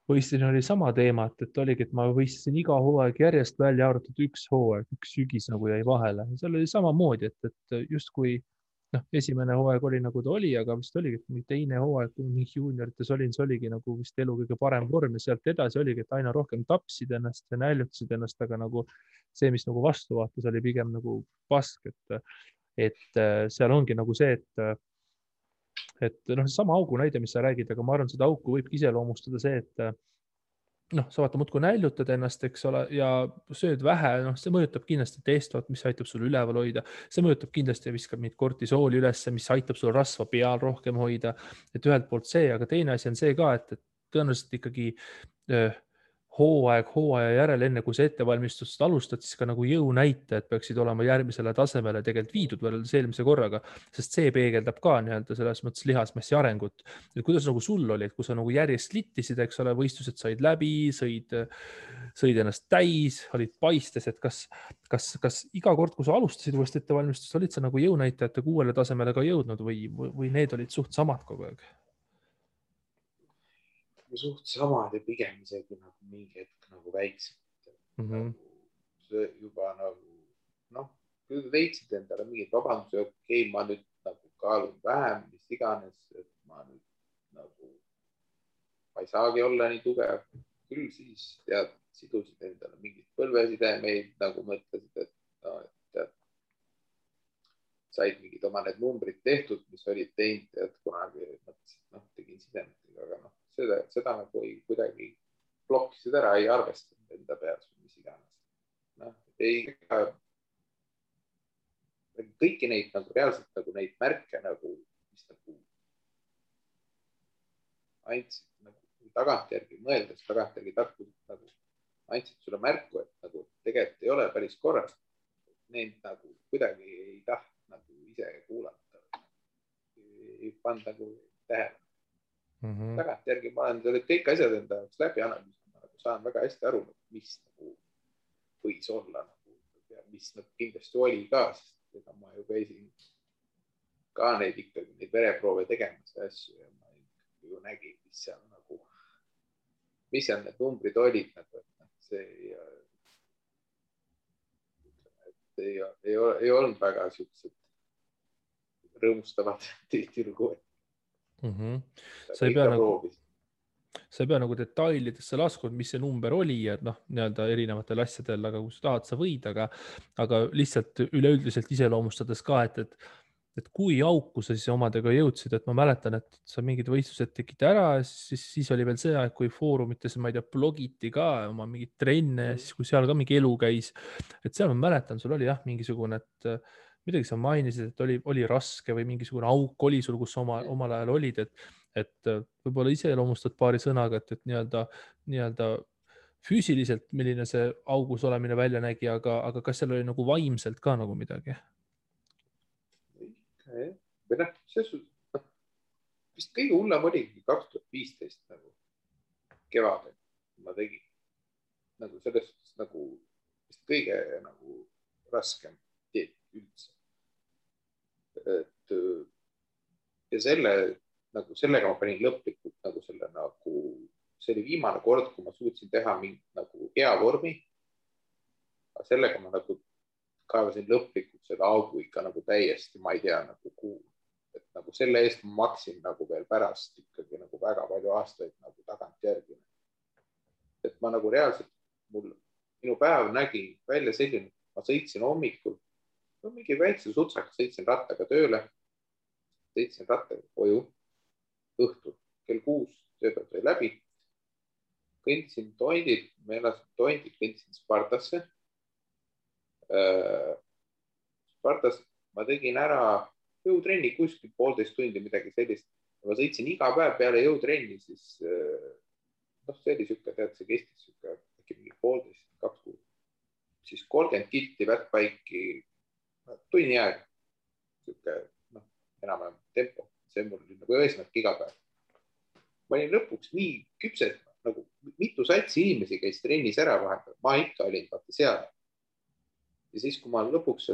võistlesin, oli sama teema, et oligi, et ma võistlesin iga hooaeg järjest välja arvatud üks hooaeg, üks sügis nagu jäi vahele. Seal oli samamoodi, et justkui noh, esimene hooaeg oli nagu ta oli, aga vist oligi, et teine hooaeg, kui mingi juuniorites olin, see oligi nagu vist elu kõige parem vorm ja sealt edasi oligi, et aina rohkem tapsid ennast ja näljutasid ennast, aga nagu see, mis nagu vastu vaatas, oli pigem nagu pask, et seal ongi nagu see, et noh, sama augu näide, mis sa räägid, aga ma arvan, seda auku võibki iseloomustada see, et noh, sa vaata muudkui näljutad ennast, eks ole, ja sööd vähe, noh, see mõjutab kindlasti testot, mis aitab sul üleval hoida, see mõjutab kindlasti ja viskab neid kortisooli ülesse, mis aitab sul rasva peal rohkem hoida, et ühelt poolt see, aga teine asi on see ka, et tõenäoliselt ikkagi hooaja järel, enne kui sa ettevalmistust alustad, siis ka nagu jõunäitajad peaksid olema järgmisele tasemele tegelikult viidud võrreldes eelmise korraga, sest see peegeldab ka nii-öelda selles mõttes lihasmassi arengut. Et kuidas nagu sul oli, et kui sa nagu järjest littisid, eks ole, võistlused said läbi, sõid ennast täis, olid paistes, et kas iga kord, kui sa alustasid uuesti ettevalmistust, olid sa nagu jõunäitajate uuele tasemele ka jõudnud või need olid suht samad kogu aeg? Suht samad ja pigem isegi nagu mingi hetk nagu väiksemad. Nagu juba nagu, noh, kui leidsid endale mingid vabanduse, okei, ma nüüd nagu kaalun vähem, mis iganes, et ma nüüd nagu, ma ei saagi olla nii tugev. Küll siis tead, sidusid endale mingid põlvesidemeid, nagu mõtlesid, et no, et said mingid oma need numbrid tehtud, mis olid teinud, et kunagi mõtlesid, noh, tegin sidemetega, aga noh, seda nagu ei kuidagi blokkisid ära, ei arvestanud enda peas või mis iganes. Noh, kõiki neid nagu reaalselt nagu neid märke nagu, mis nagu andsid nagu tagantjärgi mõeldes, tagantjärgi tarkused nagu andsid sulle märku, et nagu tegelikult ei ole päris korras. Neid nagu kuidagi ei tahtnud nagu ise kuulata. Ei pannud nagu tähele. Tagantjärgi ma olen kõik asjad enda jaoks läbi analüüsinud, nagu saan väga hästi aru, mis nagu võis olla nagu, ja mis nagu kindlasti oli ka, sest ega ma ju käisin ka neid ikkagi, neid vereproove tegemas ja asju ja ma ju nägin, mis seal nagu, mis seal need numbrid olid nagu, et see ei olnud väga siuksed rõõmustavad tihtilugu. Sa ei pea nagu detailidesse laskunud, mis see number oli ja noh, nii-öelda erinevatel asjadel, aga kui sa tahad, sa võid, aga lihtsalt üleüldiselt iseloomustades ka, et kui auku sa siis omadega jõudsid, et ma mäletan, et sa mingid võistlused tegid ära, siis oli veel see aeg, kui foorumites, ma ei tea, blogiti ka oma mingid trenne ja siis kui seal ka mingi elu käis, et seal ma mäletan, sul oli jah, mingisugune, et midagi sa mainisid, et oli raske või mingisugune auk oli sul, kus omal ajal olid, et võib-olla iseloomustad paari sõnaga, et nii-öelda füüsiliselt, milline see augus olemine välja nägi, aga kas seal oli nagu vaimselt ka nagu midagi? Või noh, vist kõige hullem oligi 2015 nagu kevadel ma tegin. Nagu selles nagu vist kõige nagu raskem teed üldse. Ja sellega ma panin lõplikult nagu selle nagu, see oli viimane kord, kui ma suutsin teha mingi nagu hea vormi. Aga sellega ma nagu kaevasin lõplikult selle augu ikka nagu täiesti, ma ei tea nagu kuhu. Et nagu selle eest ma maksin nagu veel pärast ikkagi nagu väga palju aastaid nagu tagantjärgi. Et ma nagu reaalselt, minu päev nägi välja selline, ma sõitsin hommikul, no mingi väikse sutsaka, sõitsin rattaga tööle, sõitsin rattaga koju, õhtul kell 6 tööpäev sai läbi, kõndisin Tondit, ma elasin Tondit, kõndisin Spartasse, Spartas ma tegin ära jõutrenni kuskil 1,5 tundi, midagi sellist. Ma sõitsin iga päev peale jõutrenni, siis see oli siuke, tead, see kestis siuke äkki mingi 1,5, 2 kuud. Siis 30 kilti vättpaiki tunni aeg, siuke enam-vähem tempo. See mul oli nagu eesmärk iga päev. Ma olin lõpuks nii küpsed, nagu mitu satsi inimesi käis trennis ära vahepeal. Ma ikka olin vaata seal. Ja siis, kui ma lõpuks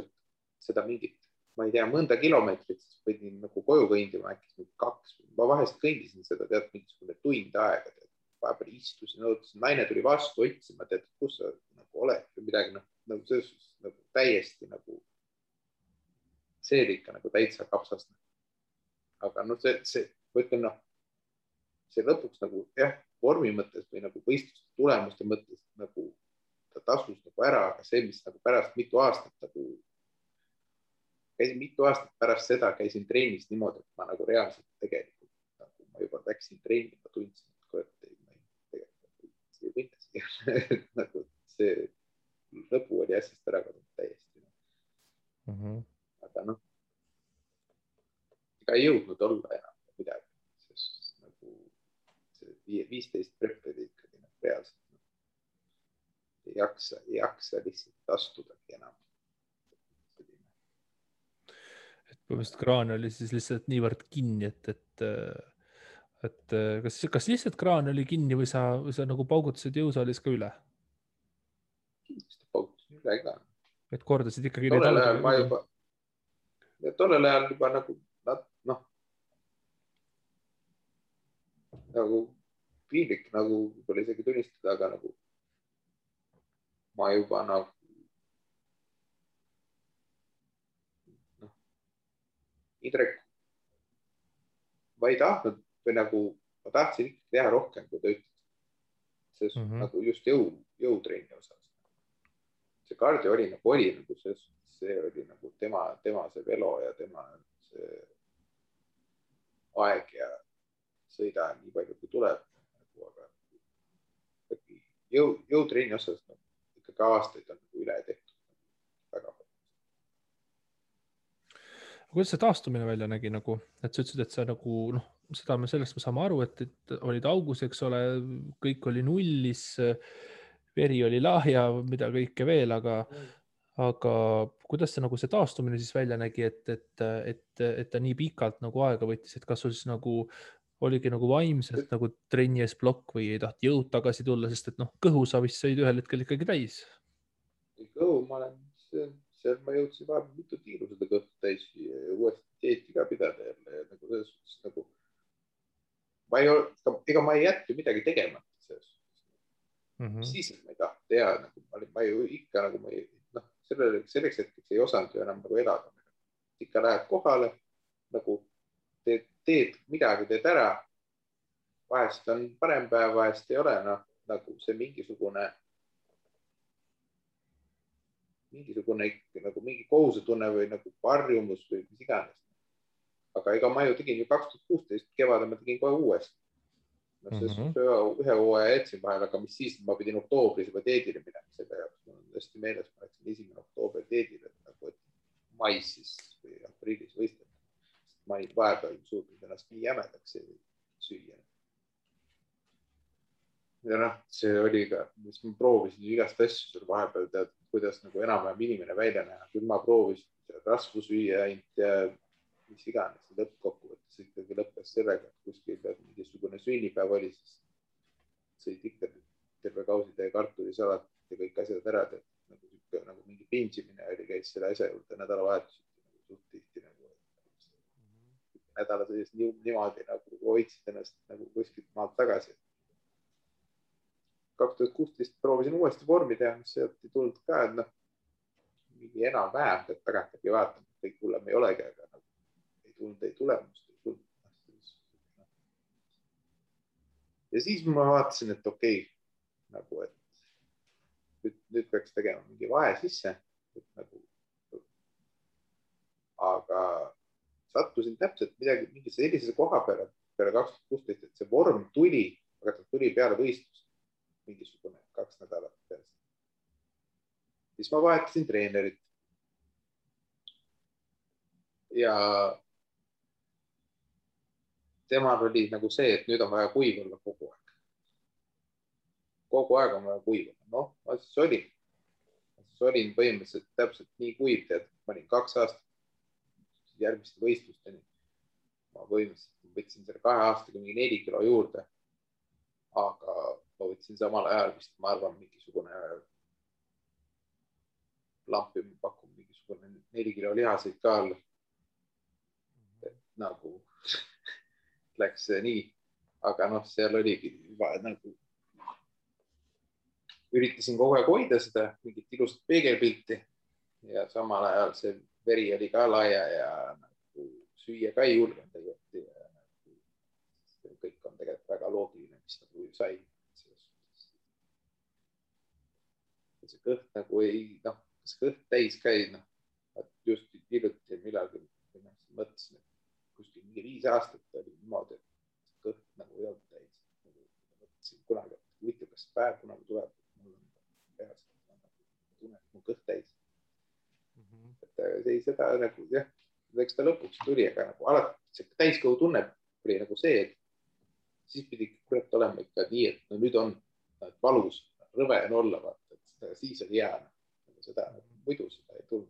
seda mingit, ma ei tea, mõnda kilomeetrit, siis võidin nagu koju kõindima äkki 2. Ma vahest kõindisin seda, tead, mingisugune tund aega. Vahepeal istusin, ootasin, naine tuli vastu otsima, tead, kus sa nagu oled või midagi, nagu selles nagu täiesti nagu see oli ikka nagu täitsa kapsast. Aga see võtlen, see lõpuks nagu jah, vormi mõttes või nagu võistluste tulemuste mõttes nagu ta tasus nagu ära, aga see, mis nagu pärast mitu aastat nagu käisin mitu aastat pärast seda, käisin trennis niimoodi, et ma nagu reaalselt tegelikult nagu ma juba läksin trenni, ma tundsin, et kurat, ei võita siia. Nagu see lõpu oli asjast ära kadunud täiesti. Aga ega ei jõudnud olla enam midagi, sest nagu see 15 prep oli ikkagi reaalselt ei jaksa lihtsalt astudagi enam. Põhimõtteliselt kraan oli siis lihtsalt niivõrd kinni, et kas lihtsalt kraan oli kinni või sa nagu paugutasid jõusaalis ka üle? Kindlasti paugutasin üle ka. Et kordasid ikkagi tollel ajal juba nagu piinlik nagu võib-olla isegi tunnistada, aga nagu ma juba nagu Indrek, ma ei tahtnud või nagu ma tahtsin ikkagi teha rohkem, kui ta ütles. See nagu just jõutrenni osas. See kardio oli nagu see oli nagu tema see velo ja tema see aeg ja sõida nii palju, kui tuleb. Aga jõutrenni osas ikkagi aastaid on nagu üle tehtud. Väga palju. Kuidas see taastumine välja nägi nagu, et sa ütlesid, et sa nagu, sellest me saame aru, et olid augus, eks ole, kõik oli nullis, veri oli lahja, mida kõike veel, aga kuidas see nagu see taastumine siis välja nägi, et ta nii pikalt nagu aega võttis, et kas sul siis nagu oligi nagu vaimselt nagu trenni ees plokk või ei taht jõud tagasi tulla, sest et kõhu sa vist sõid ühel hetkel ikkagi täis. Kõhu ma olen seal ma jõudsin vahepeal mitu tiiru seda kõhtu täis ja uuesti dieeti ka pidada jälle. Nagu selles suhtes nagu ega ma ei jätnud midagi tegemata selles suhtes. Siis, et ma ei tahtnud teha, ma ju ikka nagu selleks hetkeks ei osanud ju enam nagu elada. Ikka lähed kohale, nagu teed midagi, teed ära. Vahest on parem päev, vahest ei ole, nagu see mingisugune nagu mingi kohusetunne või nagu varjumus või mis iganes. Aga ega ma ju tegin ju 2016 kevadel, ma tegin kohe uuesti. Ühe hooaja jätsin vahel, aga mis siis, ma pidin oktoobris juba teedile minema selle jaoks. Mul on hästi meeles, ma läksin 1. oktoober teedile, nagu et mais siis või aprillis võistlema. Ma ei vahepeal suutnud ennast nii jämedaks süüa. Ja see oli ka, mis ma proovisin igast asju seal vahepeal tead, kuidas nagu enam-vähem inimene välja näha. Küll ma proovisin rasvu süüa ainult ja mis iganes. Lõppkokkuvõttes ikkagi lõppes sellega, et kuskil mingisugune sünnipäev oli, siis sõid ikka terve kausitäie kartulisalat ja kõik asjad ära. Nagu mingi pingimine oli, käis selle asja juurde nädalavahetus. Suht tihti nädala sees niimoodi nagu hoidsid ennast nagu kuskilt maalt tagasi. 2016 proovisin uuesti vormi teha, mis sealt ei tulnud ka, et mingi enam-vähem, et tagantagi vaatama, kõik hullem ei olegi, aga ei tulemust. Ja siis ma vaatasin, et okei, nagu, et nüüd peaks tegema mingi vahe sisse, aga sattusin täpselt mingi sellise koha peale 2016, et see vorm tuli, aga ta tuli peale võistlust mingisugune 2 nädalat peale. siis ma vahetasin treenerit. Ja temal oli nagu see, et nüüd on vaja kuiv olla kogu aeg. Kogu aeg on vaja kuiv olla. Noh, ma siis olin põhimõtteliselt täpselt nii kuiv, tead, ma olin 2 aastat järgmiste võistlusteni. Ma põhimõtteliselt võtsin selle 2 aastaga mingi 4 kilo juurde. Aga ma võtsin samal ajal vist, ma arvan, mingisugune lampi pakub mingisugune 4 kilo lihaseid ka all. Nagu läks nii, aga noh, seal oligi nagu üritasin kogu aeg hoida seda mingit ilusat peegelpilti ja samal ajal see veri oli ka laia ja nagu süüa ka ei julgenud tegelikult. Ja kõik on tegelikult väga loogiline, mis nagu sai. See kõht nagu ei, noh, kas kõht täis käi, noh, just hiljuti millalgi mõtlesin, et kuskil mingi 5 aastat oli niimoodi, et kõht nagu ei olnud täis. Mõtlesin kunagi, et huvitav, kas päev kunagi tuleb, et mul on peas, tunnen, et mu kõht täis. Et ei seda nagu, jah, eks ta lõpuks tuli, aga nagu alati see täiskõhu tunne oli nagu see, et siis pidi kurat olema ikka nii, et no nüüd on valus, rõve on olla, vaata, et siis oli hea. Seda muidu seda ei tulnud.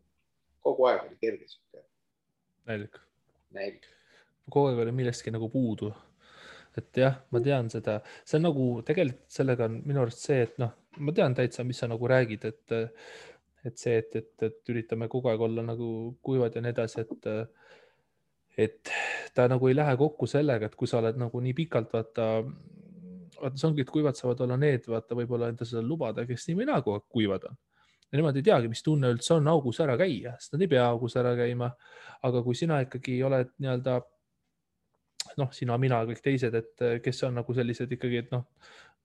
Kogu aeg oli kerge. Näilik. Näilik. Kogu aeg oli millestki nagu puudu. Et jah, ma tean seda. See on nagu, tegelikult sellega on minu arust see, et noh, ma tean täitsa, mis sa nagu räägid, et see, et üritame kogu aeg olla nagu kuivad ja nii edasi, et ta nagu ei lähe kokku sellega, et kui sa oled nagu nii pikalt, vaata, see ongi, et kuivad saavad olla need, vaata, võib-olla enda seda lubada, kes nii või nagu kuivad on. Ja nemad ei teagi, mis tunne üldse on augus ära käia, sest nad ei pea augus ära käima. Aga kui sina ikkagi oled nii-öelda, noh, sina, mina, kõik teised, et kes on nagu sellised ikkagi, et noh,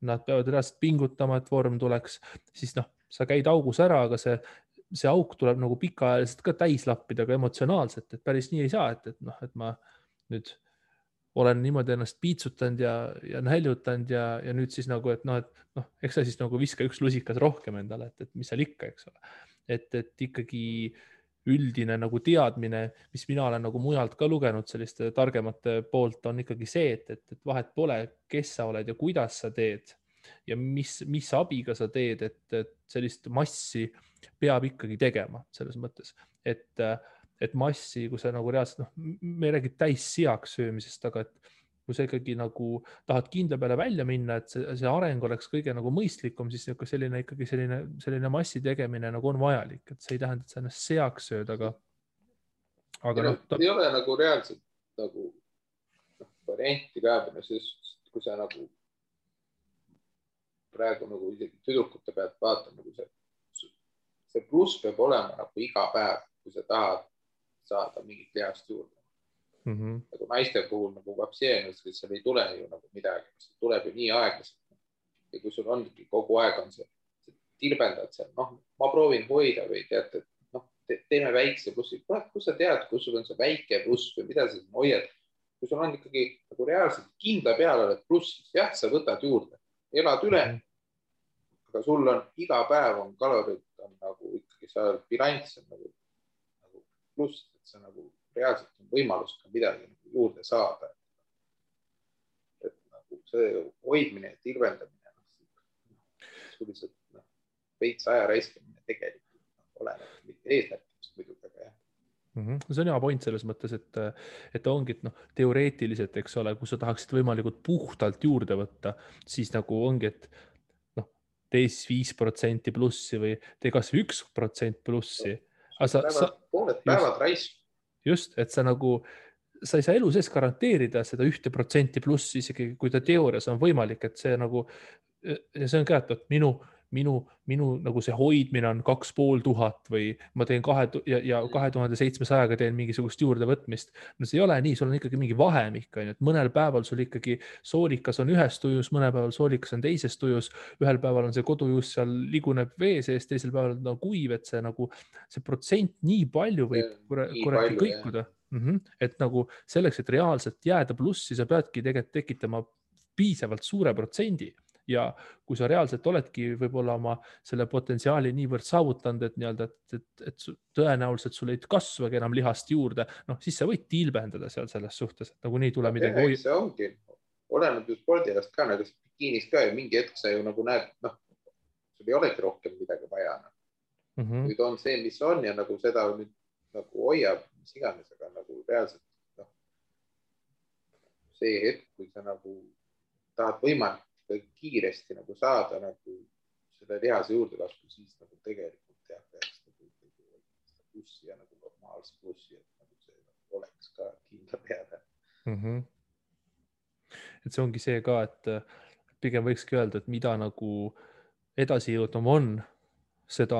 nad peavad reaalselt pingutama, et vorm tuleks, siis noh, sa käid augus ära, aga see auk tuleb nagu pikaajaliselt ka täis lappida, aga emotsionaalselt, et päris nii ei saa, et noh, et ma nüüd olen niimoodi ennast piitsutanud ja näljutanud ja nüüd siis nagu, et noh, eks sa siis nagu viska üks lusikas rohkem endale, et mis seal ikka, eks ole. Et ikkagi üldine nagu teadmine, mis mina olen nagu mujalt ka lugenud selliste targemate poolt, on ikkagi see, et vahet pole, kes sa oled ja kuidas sa teed ja mis abiga sa teed, et sellist massi peab ikkagi tegema selles mõttes, et massi, kui sa nagu reaalselt, noh, me ei räägi täis seaks söömisest, aga et kui sa ikkagi nagu tahad kindla peale välja minna, et see areng oleks kõige nagu mõistlikum, siis selline massi tegemine nagu on vajalik, et see ei tähenda, et sa ennast seaks sööd, aga noh. Ei ole nagu reaalselt nagu varianti ka, kui sa nagu praegu nagu isegi tüdrukute pealt vaatad, nagu see pluss peab olema nagu iga päev, kui sa tahad saada mingit lihast juurde. Nagu naiste puhul nagu vapseenus, et seal ei tule ju nagu midagi, see tuleb ju nii aeglaselt. Ja kui sul on kogu aeg on see tilbendad seal, noh, ma proovin hoida või tead, et noh, teeme väikse plussi. Kus sa tead, kus sul on see väike pluss või mida sa hoiad? Kui sul on ikkagi nagu reaalselt kindla peale oled plussis, jah, sa võtad juurde, elad üle, aga sul on iga päev on kalorid on nagu ikkagi sa bilanss on nagu pluss, et sa nagu reaalselt on võimalus ka midagi nagu juurde saada. Et nagu see hoidmine ja tilvendamine, sellised veits aja raiskamine tegelikult oleneb mitte eesmärkidest muidugi, aga jah. See on hea point selles mõttes, et ongi, et noh, teoreetiliselt, eks ole, kui sa tahaksid võimalikult puhtalt juurde võtta, siis nagu ongi, et noh, tee 5% plussi või tee kas 1% plussi. Pooled päevad raisk. Just, et sa ei saa elu sees garanteerida seda 1% plussi, isegi kui ta teoorias on võimalik, et see nagu, ja see on ka, et minu nagu see hoidmine on 2500 või ma teen 2700-ga teen mingisugust juurdevõtmist. No see ei ole nii, sul on ikkagi mingi vahemik, et mõnel päeval sul ikkagi soolikas on ühes tujus, mõnel päeval soolikas on teises tujus, ühel päeval on see kodujuus seal liguneb vee sees, teisel päeval on kuiv, et see protsent nii palju võib kuradi kõikuda. Et nagu selleks, et reaalselt jääda plussi, sa peadki tegelikult tekitama piisavalt suure protsendi. ja kui sa reaalselt oledki võib-olla oma selle potentsiaali niivõrd saavutanud, et nii-öelda, et tõenäoliselt sul ei kasvagi enam lihast juurde, noh, siis sa võid tilbendada seal selles suhtes, et nagunii tuleb midagi see ongi, oleneb ju spordialast ka, nagu bikiinis ka ja mingi hetk sa ju nagu näed, noh, sul ei olegi rohkem midagi vaja. Nüüd on see, mis on ja nagu seda nüüd nagu hoiab, mis iganes, aga nagu reaalselt noh, see hetk, kui sa nagu tahad võimalikult kiiresti nagu saada nagu selle lihase juurdekasvu, siis nagu tegelikult jah, peaks nagu plussi ja nagu normaalse plussi, et nagu see nagu oleks ka kindla peale. Et see ongi see ka, et pigem võikski öelda, et mida nagu edasi jõudnum on, seda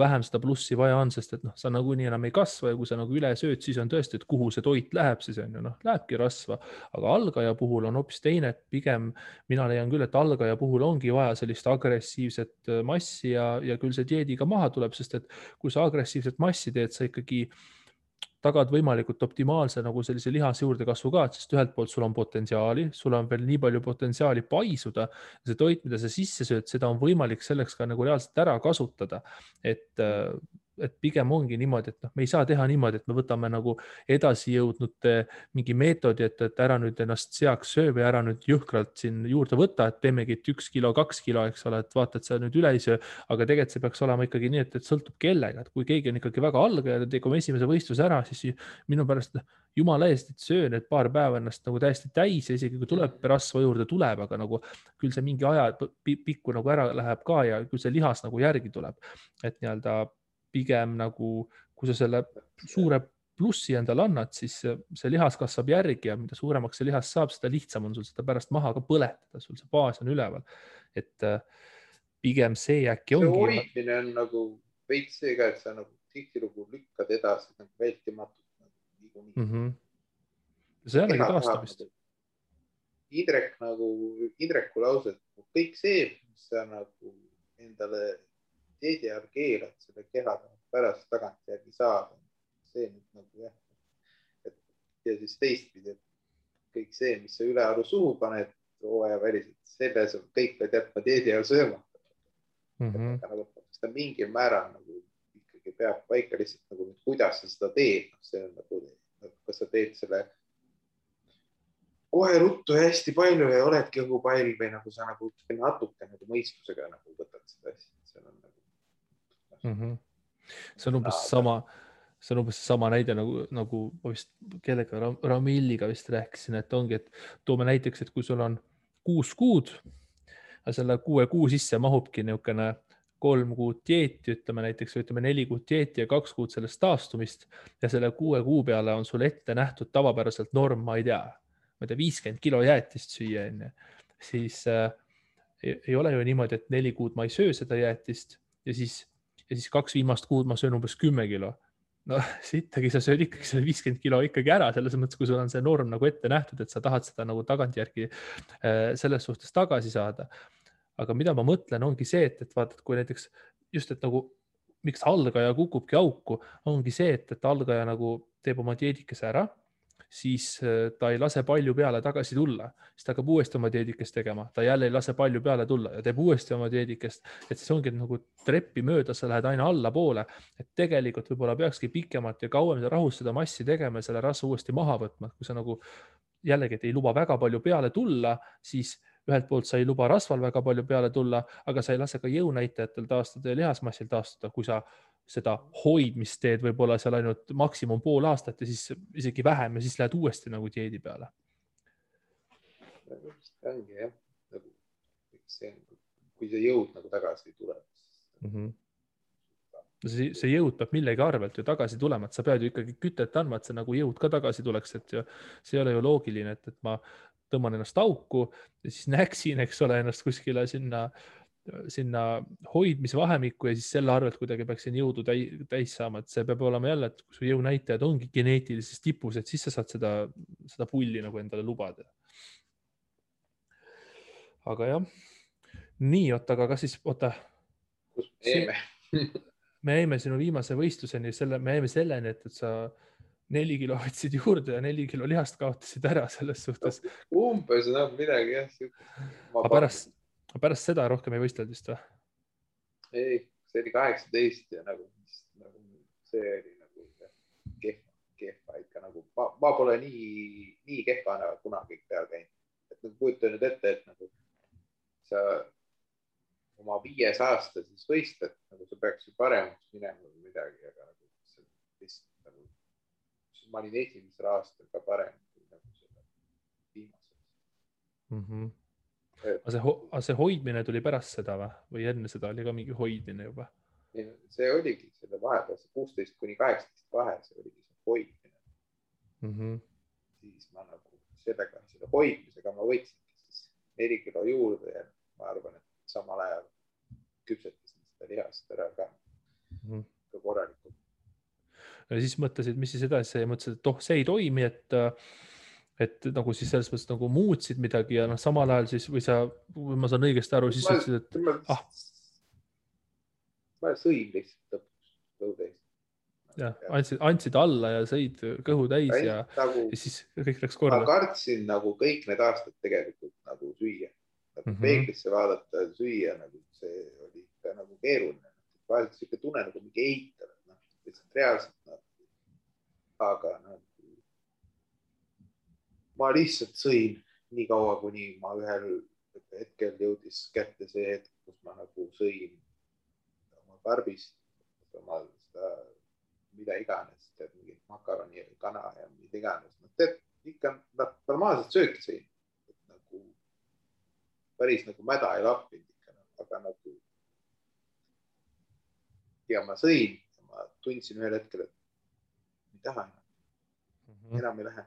vähem seda plussi vaja on, sest et noh, sa nagunii enam ei kasva ja kui sa nagu üle sööd, siis on tõesti, et kuhu see toit läheb, siis on ju noh, lähebki rasva, aga algaja puhul on hoopis teine, et pigem mina leian küll, et algaja puhul ongi vaja sellist agressiivset massi ja küll see dieediga maha tuleb, sest et kui sa agressiivset massi teed, sa ikkagi tagad võimalikult optimaalse nagu sellise lihase juurdekasvu ka, sest ühelt poolt sul on potentsiaali, sul on veel nii palju potentsiaali paisuda. See toit, mida sa sisse sööd, seda on võimalik selleks ka nagu reaalselt ära kasutada. Et pigem ongi niimoodi, et noh, me ei saa teha niimoodi, et me võtame nagu edasi jõudnud mingi meetodi, et ära nüüd ennast seaks söö või ära nüüd jõhkralt siin juurde võtta, et teemegi 1 kilo, 2 kilo, eks ole, et vaata, et sa nüüd üle ei söö, aga tegelikult see peaks olema ikkagi nii, et sõltub kellega, et kui keegi on ikkagi väga algaja ja teeb oma esimese võistluse ära, siis minu pärast jumala eest, et söö need paar päeva ennast nagu täiesti täis ja isegi kui tuleb rasva juurde, tuleb, aga nagu küll see mingi aja pikku nagu ära läheb ka ja küll see lihas nagu järgi tuleb, et nii-öelda pigem nagu, kui sa selle suure plussi endale annad, siis see lihas kasvab järgi ja mida suuremaks see lihas saab, seda lihtsam on sul seda pärast maha ka põletada, sul see baas on üleval. Et pigem see äkki ongi. See hoidmine on nagu veits see ka, et sa nagu tihtilugu lükkad edasi nagu vältimatult. See on taastamist. Indreku lause, et kõik see, mis sa nagu endale dieedi ajal keelad selle keha pärast tagantjärgi saada. See nüüd nagu jah. Ja siis teistpidi, et kõik see, mis sa ülearu suhu paned hooaja väliselt, selles on kõik pead jätma dieedi ajal sööma. Nagu, seda mingil määral nagu ikkagi peab paika lihtsalt nagu, kuidas sa seda teed. See on nagu, kas sa teed selle kohe ruttu ja hästi palju ja oledki õhu pall või nagu sa nagu natuke nagu mõistusega nagu võtad seda asja. See on umbes sama näide nagu vist kellega Ramilliga vist rääkisin, et ongi, et toome näiteks, et kui sul on 6 kuud ja selle 6 kuu sisse mahubki niisugune 3 kuud dieeti, ütleme näiteks, ütleme 4 kuud dieeti ja 2 kuud sellest taastumist ja selle 6 kuu peale on sul ette nähtud tavapäraselt norm, ma ei tea, 50 kilo jäätist süüa, siis ei ole ju niimoodi, et 4 kuud ma ei söö seda jäätist ja siis 2 viimast kuud ma söön umbes 10 kilo. No sittagi sa sööd ikkagi selle 50 kilo ikkagi ära, selles mõttes, kui sul on see norm nagu ette nähtud, et sa tahad seda nagu tagantjärgi selles suhtes tagasi saada. Aga mida ma mõtlen, ongi see, et vaatad, kui näiteks just, et nagu miks algaja kukubki auku, ongi see, et algaja nagu teeb oma dieedikese ära, siis ta ei lase palju peale tagasi tulla, siis ta hakkab uuesti oma dieedikest tegema, ta jälle ei lase palju peale tulla ja teeb uuesti oma dieedikest, et siis ongi nagu treppi mööda, sa lähed aina allapoole, et tegelikult võib-olla peakski pikemalt ja kauem rahus seda massi tegema ja selle rasva uuesti maha võtma, kui sa nagu jällegi, et ei luba väga palju peale tulla, siis ühelt poolt sa ei luba rasval väga palju peale tulla, aga sa ei lase ka jõunäitajatel taastada ja lihasmassil taastada, kui sa seda hoidmist teed võib-olla seal ainult maksimum pool aastat ja siis isegi vähem ja siis lähed uuesti nagu dieedi peale. Ongi jah, kui see jõud nagu tagasi ei tule. See jõud peab millegi arvelt ju tagasi tulema, et sa pead ju ikkagi kütet andma, et see nagu jõud ka tagasi tuleks, et see ei ole ju loogiline, et ma tõmban ennast auku ja siis näksin, eks ole, ennast kuskile sinna hoidmisvahemikku ja siis selle arvelt kuidagi peaksin jõudu täis saama, et see peab olema jälle, et kui su jõunäitajad ongi geneetilises tipus, et siis sa saad seda pulli nagu endale lubada. Aga jah, nii, aga kas siis, me jäime sinu viimase võistluseni, me jäime selleni, et sa 4 kilo võtsid juurde ja 4 kilo lihast kaotasid ära selles suhtes. Umbes midagi jah. Aga pärast seda rohkem ei võistelnud vist või? Ei, see oli 18 ja nagu see oli nagu kehva ikka nagu, ma pole nii kehvana kunagi peal käinud. Et nagu kujuta nüüd ette, et nagu sa oma 5 aasta siis võistled, nagu sa peaks ju paremaks minema või midagi, aga nagu lihtsalt nagu, ma olin esimesel aastal ka parem kui nagu selle viimasel. Aga see hoidmine tuli pärast seda või enne seda oli ka mingi hoidmine juba? See oligi selle vahepeal, see 16 kuni 18 vahe, see oligi see hoidmine. Siis ma nagu selle hoidmisega ma võtsin siis 4 kilo juurde ja ma arvan, et samal ajal küpsetasin seda lihast ära ka korralikult. Ja siis mõtlesid, mis siis edasi, mõtlesid, et see ei toimi, et nagu siis selles mõttes nagu muutsid midagi ja samal ajal siis, või ma saan õigesti aru, siis ütlesid, et ma sõin lihtsalt lõpuks kõhu täis. Jah, andsid alla ja sõid kõhu täis ja siis kõik läks korda. Ma kartsin nagu kõik need aastad tegelikult nagu süüa. Peeglisse vaadata ja süüa, nagu see oli ikka nagu keeruline. Vahelt siuke tunne nagu mingi eitab, lihtsalt reaalselt. Aga ma lihtsalt sõin nii kaua, kuni ma ühel hetkel jõudis kätte see hetk, kus ma nagu sõin oma karbist, oma seda, mida iganes, mingit makaroni, kana ja mida iganes. Ikka normaalselt sööki sõin. Nagu päris nagu mäda ei lappinud ikka, aga nagu ja ma sõin ja ma tundsin ühel hetkel, et ei taha enam ei lähe.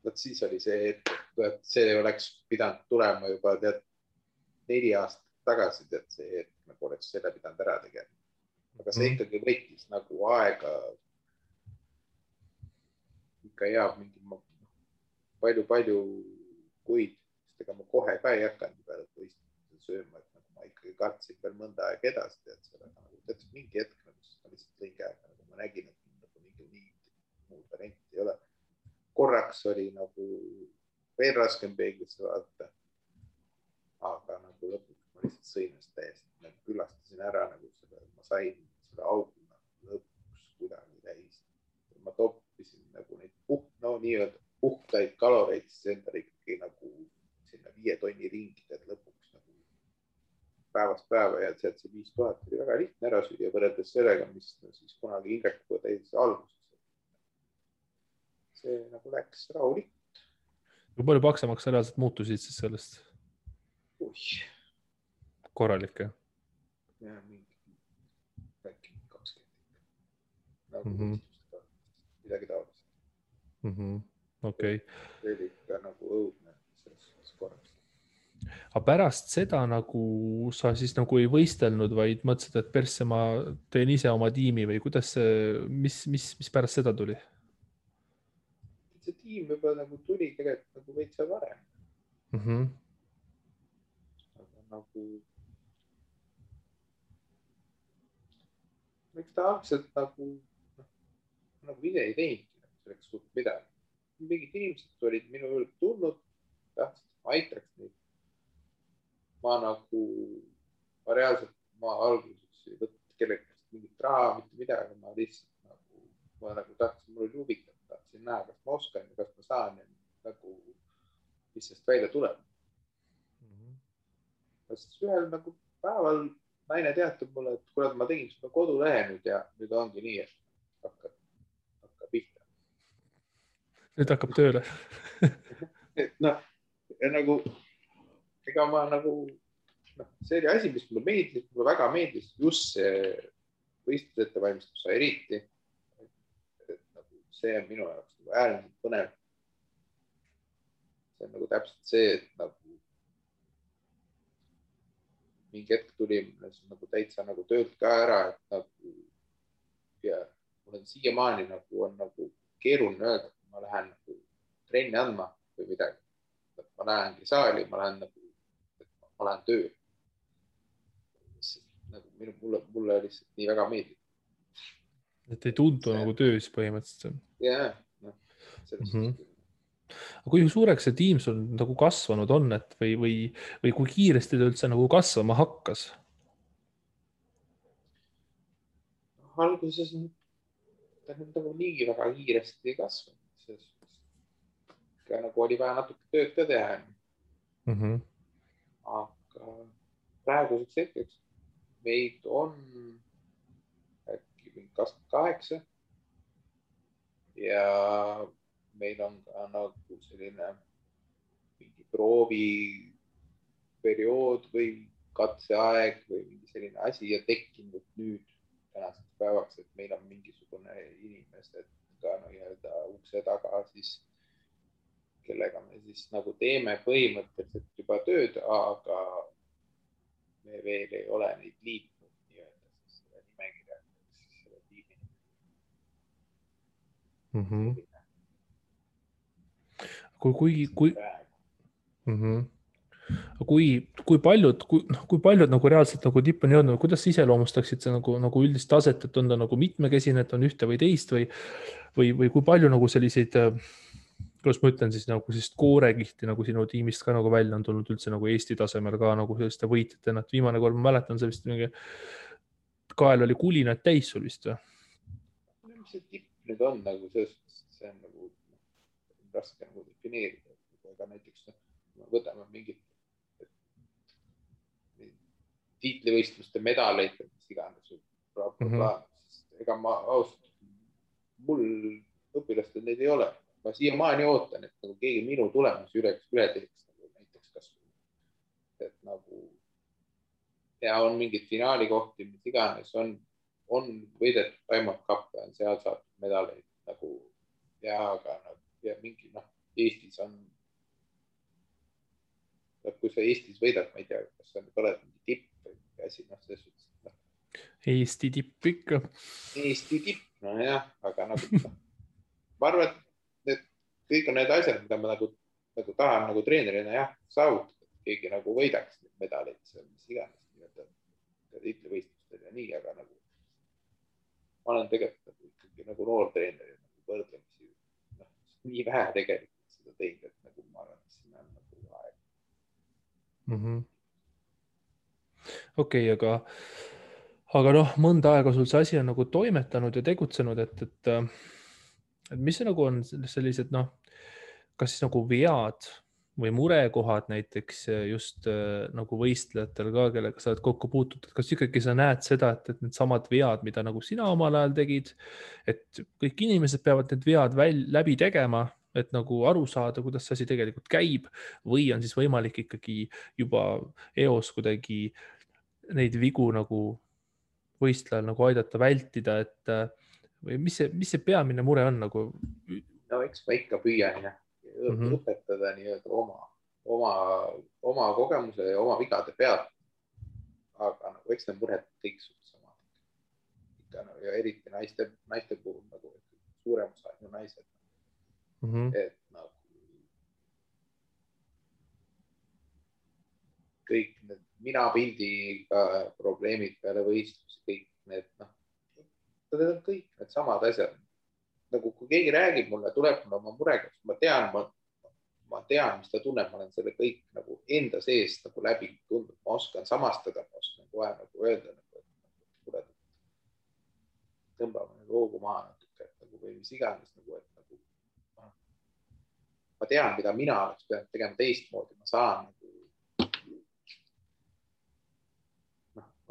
Võt siis oli see hetk, et see oleks pidanud tulema juba 4 aastat tagasi, et see hetk nagu oleks selle pidanud ära tegema. Aga see ikkagi võttis nagu aega ikka hea mingi palju kuid, sest ega ma kohe ka ei hakanud peale võistlust sööma, et nagu ma ikkagi kartsin veel mõnda aega edasi, et sellega nagu teatud mingi hetk nagu ma lihtsalt õige aega, nagu ma nägin, et nagu mingi muud varianti ei ole. Korraks oli nagu veel raskem peeglisse vaadata, aga nagu lõpuks ma lihtsalt sõinast täiesti, nagu külastasin ära nagu selle, ma sain selle auguna lõpuks kuidagi täis. Ma toppisin nagu neid nii-öelda puhtaid kaloreid, siis endale ikkagi nagu sinna 5 tonni ringi, et lõpuks nagu päevast päeva ja sealt see 5000 oli väga lihtne ära süüa võrreldes sellega, mis siis kunagi Indrekuga täis alguses. See nagu läks rahulikult. Kui palju paksemaks reaalselt muutusid siis sellest? Korralik, jah? Ja, mingi 20. Nagu midagi taolist. Okei. See oli ikka nagu õudne selles korras. Aga pärast seda nagu sa siis nagu ei võistelnud, vaid mõtlesid, et persse ma teen ise oma tiimi või kuidas see, mis pärast seda tuli? See tiim juba nagu tuli tegelikult nagu veitsa varem. Aga nagu miks ta algselt nagu ise ei teinudki selleks suht midagi. Mingid inimesed olid minu juurde tulnud, tahtsid, ma aitaks neid. Ma reaalselt alguses ei võtnud kellegast mingit raha, mitte midagi, ma lihtsalt tahtsin, mul oli huvitav, tahtsin näha, kas ma oskan ja kas ma saan ja nagu, mis sest välja tuleb. Sest ühel nagu päeval naine teatab mulle, et kurat, ma tegin seda kodulehe nüüd ja nüüd ongi nii, et hakkab pihta. Nüüd hakkab tööle. Nagu, ega ma nagu, see oli asi, mis mulle meeldis, mulle väga meeldis just see võistlusettevalmistus eriti. See on minu jaoks äärmiselt põnev. See on nagu täpselt see, et nagu mingi hetk tuli nagu täitsa nagu töölt ka ära, et nagu ja mul on siiamaani nagu on nagu keeruline öelda, et ma lähen nagu trenni andma või midagi. Ma lähengi saali, ma lähen tööle. Nagu mulle lihtsalt nii väga meeldib. Et ei tundu nagu töös põhimõtteliselt. Jah, selles Mhm. suhtes. Kui suureks see tiim sul nagu kasvanud on, et või kui kiiresti ta üldse nagu kasvama hakkas? Alguses ta nüüd nagu nii väga kiiresti ei kasvanud, selles suhtes. Nagu oli vaja natuke tööd ka teha. Aga praeguseks hetkeks meid on äkki 28 ja meil on ka nagu selline mingi prooviperiood või katseaeg või mingi selline asi ja tekkinud nüüd tänaseks päevaks, et meil on mingisugune inimesed ka nii-öelda ukse taga siis, kellega me siis nagu teeme põhimõtteliselt juba tööd, aga me veel ei ole neid liitnud nii-öelda siis selle nimekirja, siis selle tiimi. Kui paljud nagu reaalselt nagu tippu on jõudnud, kuidas sa iseloomustaksid see nagu üldist taset, et on ta nagu mitmekesine, et on ühte või teist või kui palju nagu selliseid, kuidas ma ütlen siis nagu sellist koorekihti nagu sinu tiimist ka nagu välja on tulnud üldse nagu Eesti tasemel ka nagu selliste võitjatena, et viimane kord ma mäletan, see vist mingi kael oli kulinaid täis sul vist või? Mis see tipp nüüd on nagu selles suhtes, see on nagu raske nagu defineerida, aga näiteks võtame mingit tiitlivõistluste medaleid, mis iganes, ega ma ausalt, mul õpilastel neid ei ole. Ma siiamaani ootan, et nagu keegi minu tulemusi üle teeks, nagu näiteks kasvõi. Et nagu ja on mingid finaalikohti, mis iganes on võidetud Diamond Cup ja on seal saadud medaleid nagu ja aga ja mingi Eestis on kui sa Eestis võidad, ma ei tea, kas sa oled mingi tipp või asi, selles suhtes. Eesti tipp ikka. Eesti tipp, nojah, aga nagu ma arvan, et kõik on need asjad, mida ma nagu tahan nagu treenerina jah, saavutada, keegi nagu võidaks neid medaleid, mis iganes tiitlivõistlustel ja nii, aga nagu ma olen tegelikult ikkagi nagu noor treener ja nagu võrdlemisi nii vähe tegelikult seda teinud, et nagu ma arvan, et siin on nagu aeg. Okei, aga noh, mõnda aega sul see asi on nagu toimetanud ja tegutsenud, et mis see nagu on sellised kas siis nagu vead või murekohad näiteks just nagu võistlejatel ka, kellega sa oled kokku puutunud, kas ikkagi sa näed seda, et need samad vead, mida nagu sina omal ajal tegid, et kõik inimesed peavad need vead läbi tegema, et nagu aru saada, kuidas see asi tegelikult käib või on siis võimalik ikkagi juba eos kuidagi neid vigu nagu võistlejal nagu aidata vältida, et või mis see peamine mure on nagu? No eks ma ikka püüan õpetada nii-öelda oma kogemuse ja oma vigade pealt. Aga nagu eks need mured kõik samad. Ja eriti naiste puhul nagu suurem osa on naised. Et nagu kõik need minapildiga probleemid peale võistlusi, kõik need kõik need samad asjad. Nagu kui keegi räägib mulle, tuleb mulle oma murega, ma tean, mis ta tunneb, ma olen selle kõik nagu enda sees nagu läbi tundnud, ma oskan samastada, ma oskan kohe nagu öelda, et tõmbame loogu maha natuke, või mis iganes, et ma tean, mida mina oleks pidanud tegema teistmoodi, ma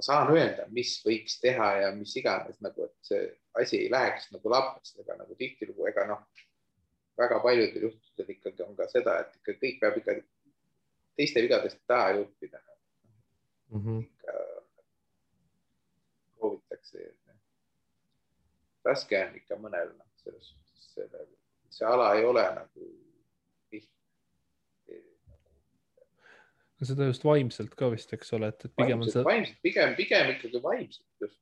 saan öelda, mis võiks teha ja mis iganes, et see asi ei läheks nagu lappest, ega nagu tihtilugu, väga paljudel juhtudel ikkagi on ka seda, et ikka kõik peab ikka teiste vigadest taha juppida. Ikka proovitakse. Raske on ikka mõnel, selles suhtes see ala ei ole nagu seda just vaimselt ka vist, eks ole, et pigem on see... Pigem ikkagi vaimselt just.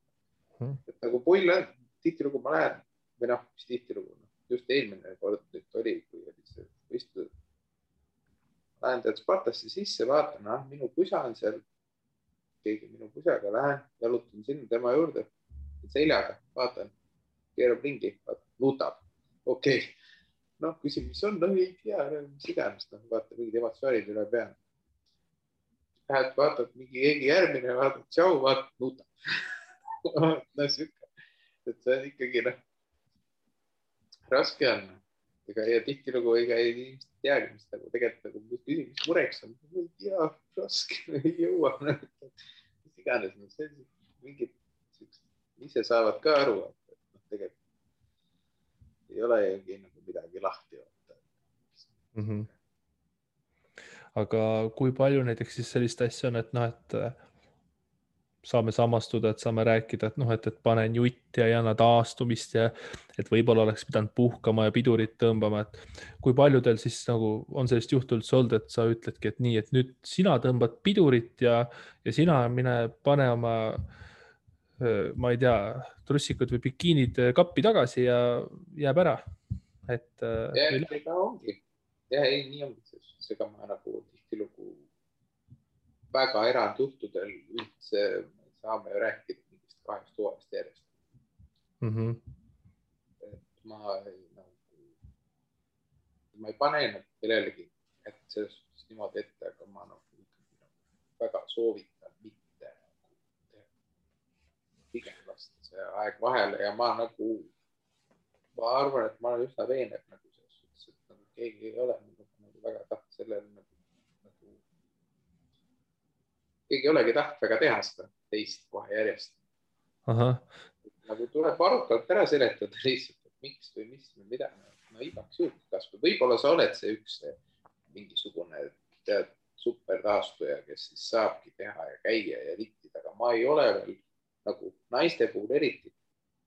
Et nagu pull on, tihtilugu ma lähen, või mis tihtilugu, just eelmine kord nüüd oli, kui oli see võistlus. Lähen tead Spartasse sisse, vaatan, minu pusa on seal, keegi minu pusaga, lähen, jalutan sinna tema juurde, seljaga, vaatan, keerab ringi, nutab, okei. noh, küsin, mis on, no ei tea, mis iganes, noh, vaata mingid emotsioonid üle peale. Lähed, vaatad mingi keegi järgmine, vaatad, tšau, vaatad, nuta. No siuke, et see on ikkagi, noh, raske on. Ja tihtilugu ei teagi, mis nagu tegelikult nagu küsin, mis mureks on. Ei tea, raske, ei jõua. Mis iganes, see mingid ise saavad ka aru, et tegelikult ei ole ju nagu midagi lahti. Aga kui palju näiteks siis sellist asja on, et noh, et saame samastuda, et saame rääkida, et noh, et panen jutti ja ei anna taastumist ja et võib-olla oleks pidanud puhkama ja pidurit tõmbama, et kui paljudel siis nagu on sellist juhtu üldse olnud, et sa ütledki, et nii, et nüüd sina tõmbad pidurit ja sina mine pane oma, ma ei tea, trussikud või bikiinid kappi tagasi ja jääb ära. Et ega ongi. Ja ei, nii ongi. Seega ma nagu tihtilugu väga erandjuhtudel üldse saame ju rääkida mingist 2 toast järjest. Et ma ei pane kellelegi selles suhtes niimoodi ette, aga ma väga soovitan mitte pigem lasta see aeg vahele ja ma arvan, et ma olen üsna veenev nagu selles suhtes, et nagu keegi ei ole nagu väga tahtnud sellele keegi ei olegi tahtnud väga teha seda teist kohe järjest. Nagu tuleb arukalt ära seletada lihtsalt, et miks või mis või mida. No igaks juhul kasvõi. Võib-olla sa oled see üks mingisugune super taastuja, kes siis saabki teha ja käia ja littida, aga ma ei ole veel nagu naiste puhul eriti.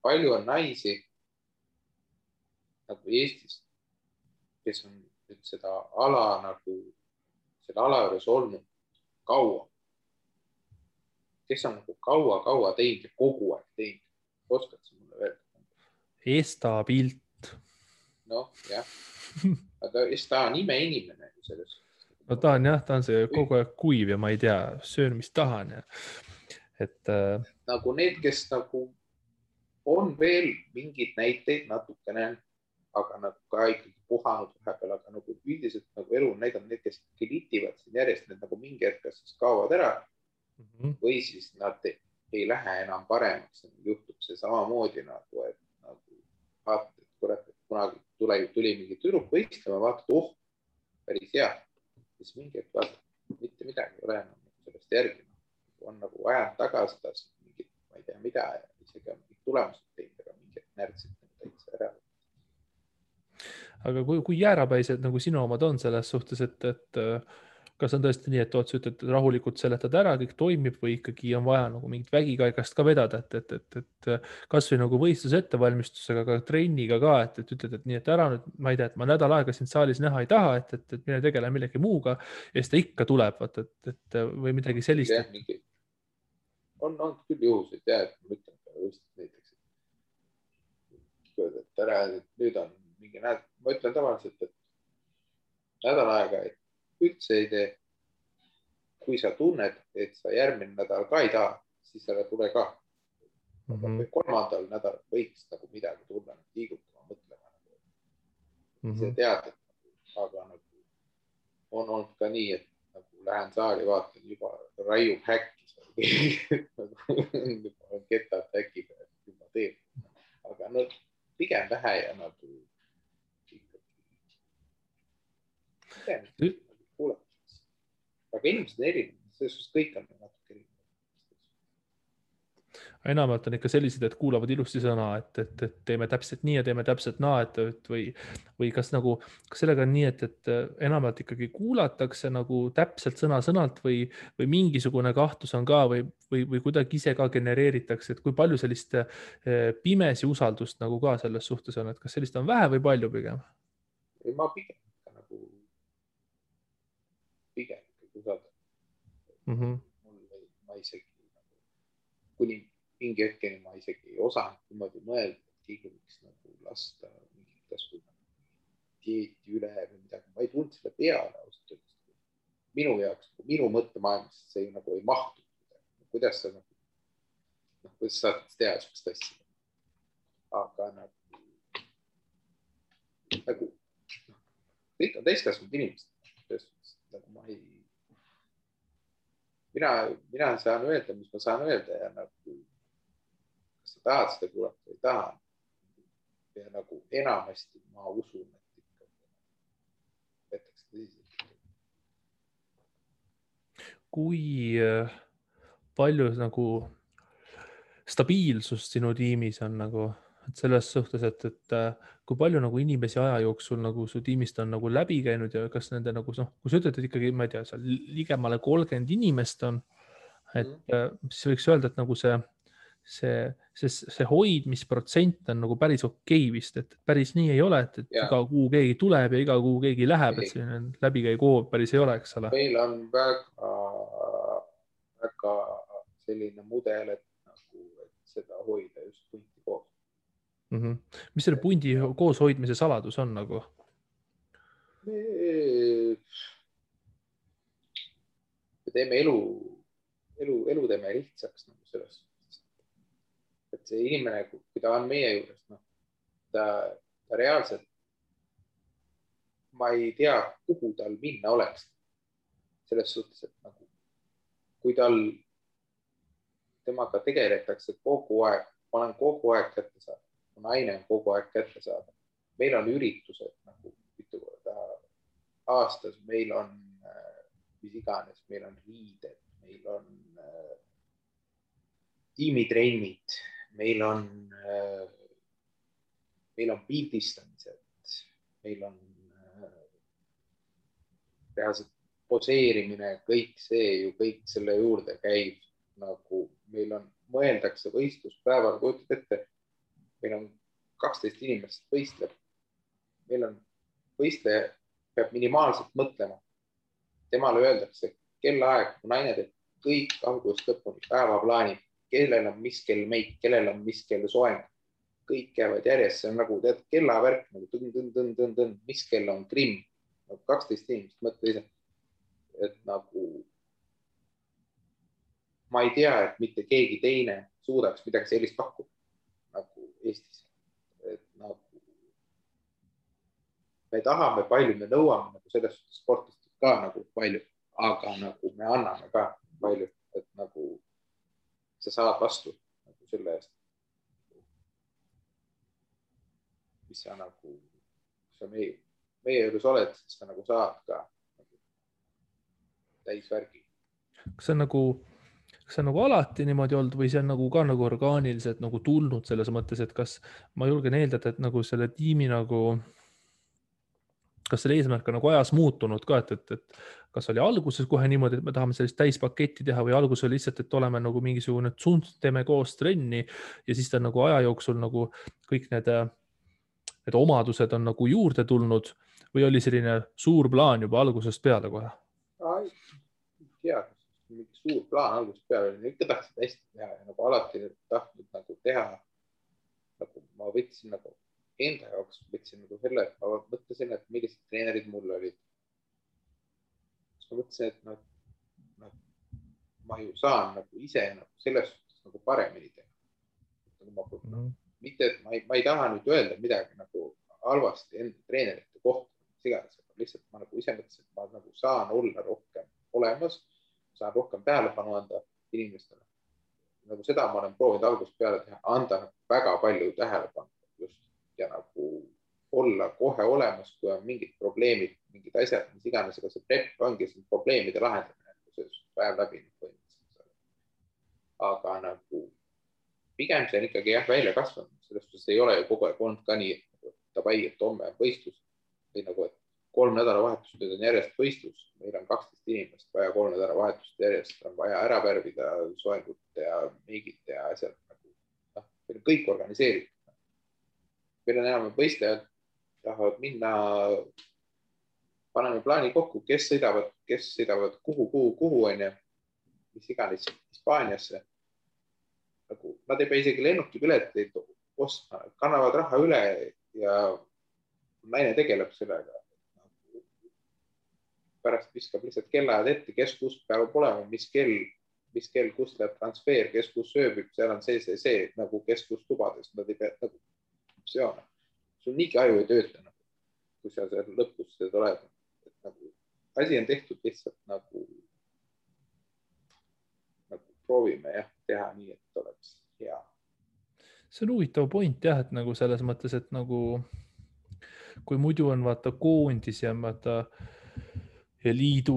Palju on naisi nagu Eestis, kes on nüüd seda ala nagu selle ala juures olnud kaua. Kes on nagu kaua teinud ja kogu aeg teinud. Oskad sa mulle veel? Esta Pilt. Noh, jah. Aga Esta on imeinimene selles. No ta on see kogu aeg kuiv ja ma ei tea, söön, mis tahan. Ja. Et, nagu need, kes nagu on veel mingid näiteid natukene, aga nagu ka ikkagi puhanud vahepeal, aga nagu üldiselt nagu elu on näidanud need, kes litivad siin järjest, need nagu mingi hetk siis kaovad ära või siis nad ei lähe enam paremaks. Juhtub see samamoodi nagu, et nagu vaatad, et kurat, et kunagi tuli mingi tüdruk võistlema, vaatad, päris hea. Siis mingi hetk vaatad, mitte midagi ei ole enam sellest järgi. On nagu ajanud tagasi mingit, ma ei tea mida, ja isegi on mingid tulemused teinud, aga mingid närtsid täitsa ära. Aga kui jäärapäised nagu sinu omad on selles suhtes, et kas on tõesti nii, et sa ütled, et rahulikult seletad ära, kõik toimib või ikkagi on vaja nagu mingit vägikaigast ka vedada, et kas või nagu võistluse ettevalmistusega, aga trenniga ka, et ütled, et nii, et ära nüüd, ma ei tea, et ma nädal aega sind saalis näha ei taha, et mine tegele millegi muuga ja siis ta ikka tuleb, et või midagi sellist. On küll juhuseid, et ma ütlen näiteks, et ära, nüüd on mingi nädal, ma ütlen tavaliselt, et nädal aega, et üldse ei tee. Kui sa tunned, et sa järgmine nädal ka ei taha, siis ära tule ka. Kolmandal nädal võiks nagu midagi tulla, liigutama, mõtlema. See tead, aga nagu on olnud ka nii, et nagu lähen saali, vaatan juba raiub häkki. On ketad häkiga, juba teeb. Aga no pigem vähe ja nagu aga inimesed on erinevad, selles kõik on natuke erinevad. Enamalt on ikka sellised, et kuulavad ilusti sõna, et teeme täpselt nii ja teeme täpselt naa, või kas sellega on nii, et enamalt ikkagi kuulatakse nagu täpselt sõna-sõnalt või mingisugune kahtlus on ka või kuidagi ise ka genereeritakse, et kui palju sellist pimesi usaldust nagu ka selles suhtes on, et kas sellist on vähe või palju pigem? Ma pigem usaldan. Ma isegi kuni mingi hetkeni ma isegi ei osanud niimoodi mõelda, et keegi võiks nagu lasta mingit kasvu dieeti üle või midagi. Ma ei tundnud selle peale ausalt öeldes. Minu jaoks, minu mõttemaailmas see nagu ei mahtu. Kuidas sa kuidas saad teha sellist asja? Aga nagu kõik on täiskasvanud inimesed. Nagu mina saan öelda, mis ma saan öelda ja nagu, kas sa tahad seda kuulata või ei taha. Ja nagu enamasti ma usun, et ikka võetakse tõsiselt. Kui palju nagu stabiilsust sinu tiimis on nagu, et selles suhtes, et kui palju nagu inimesi aja jooksul nagu su tiimist on nagu läbi käinud ja kas nende nagu noh, kui sa ütled, et ikkagi, ma ei tea, seal ligemale 30 inimest on, et siis võiks öelda, et nagu see hoidmisprotsent on nagu päris okei vist, et päris nii ei ole, et iga kuu keegi tuleb ja iga kuu keegi läheb, et selline läbikäigu hoov päris ei ole, eks ole. Meil on väga selline mudel, et seda hoida just punti koos. Mis selle pundi koos hoidmise saladus on nagu? Me teeme elu teeme lihtsaks nagu selles. Et see inimene, kui ta on meie juures, ta reaalselt, ma ei tea, kuhu tal minna oleks. Selles suhtes, et nagu, kui temaga tegeletakse kogu aeg, ma olen kogu aeg kätte saada, mu naine on kogu aeg kätte saada. Meil on üritused nagu mitu korda aastas, meil on mis iganes, meil on riided, meil on tiimitrennid, meil on pildistamised, meil on reaalselt poseerimine, kõik see ju kõik selle juurde käib. Nagu meil on, mõeldakse võistluspäeval, kujutad ette, meil on 12 inimest võistleb. Meil on võistleja, peab minimaalselt mõtlema. Temale öeldakse kellaaeg, kui naine teeb kõik algusest lõpuni päevaplaani, kellel on mis kell meik, kellel on mis kell soeng. Kõik jäävad järjest, see on nagu tead kellavärk, nagu mis kell on grimm. 12 inimest, mõtle ise. Et nagu ma ei tea, et mitte keegi teine suudaks midagi sellist pakkuda nagu Eestis. Et nagu me tahame palju, me nõuame nagu sellest sportist ka nagu palju, aga nagu me anname ka palju, et nagu sa saad vastu nagu selle eest. Mis sa nagu, sa meie juures oled, siis sa nagu saad ka nagu täisvärgi. Kas see on nagu alati niimoodi olnud või see on nagu ka nagu orgaaniliselt nagu tulnud selles mõttes, et kas ma julgen eeldada, et nagu selle tiimi nagu, kas selle eesmärk on nagu ajas muutunud ka, et kas oli alguses kohe niimoodi, et me tahame sellist täispaketti teha või alguses oli lihtsalt, et oleme nagu mingisugune tsunt, teeme koos trenni ja siis ta nagu aja jooksul nagu kõik need omadused on nagu juurde tulnud või oli selline suur plaan juba algusest peale kohe? Ei tea, mingi suur plaan algusest peale, ikka tahtsid hästi teha ja nagu alati tahtnud nagu teha. Nagu ma võtsin nagu enda jaoks, võtsin nagu selle, et ma mõtlesin, et millised treenerid mul olid. Ma mõtlesin, et ma ju saan nagu ise nagu selles suhtes nagu paremini teha. Mitte, et ma ei taha nüüd öelda midagi nagu halvasti enda treenerite kohta, lihtsalt ma nagu ise mõtlesin, et ma nagu saan olla rohkem olemas, saan rohkem tähelepanu anda inimestele. Nagu seda ma olen proovinud algusest peale teha, anda väga palju tähelepanu just ja nagu olla kohe olemas, kui on mingid probleemid, mingid asjad, mis iganes, aga see prep ongi see probleemide lahendamine, see päev läbi. Aga nagu pigem see on ikkagi välja kasvanud, sellest suhtes ei ole ju kogu aeg olnud ka nii, et davai, et homme on võistlus või nagu, et 3 nädalavahetust nüüd on järjest võistlus, meil on 12 inimest vaja 3 nädalavahetust järjest, on vaja ära värvida soengut ja meigid ja asjad nagu, meil on kõik organiseeritud. Meil on enam võistlejad, tahavad minna, paneme plaani kokku, kes sõidavad kuhu on ja mis iganes Hispaaniasse. Nagu, nad ei pea isegi lennukipileteid ostma, kannavad raha üle ja naine tegeleb sellega. Pärast viskab lihtsalt kellaajad ette, kes kus peab olema, mis kell, kus läheb transfer, kes kus sööbib, seal on see, nagu kes kus tubades, nad ei pea nagu optsioone. Sul niigi aju ei tööta. kui sa seal lõpus seda oled, et nagu asi on tehtud lihtsalt nagu proovime jah, teha nii, et oleks hea. See on huvitav point jah, et nagu selles mõttes, et nagu kui muidu on vaata koondis ja vaata ja liit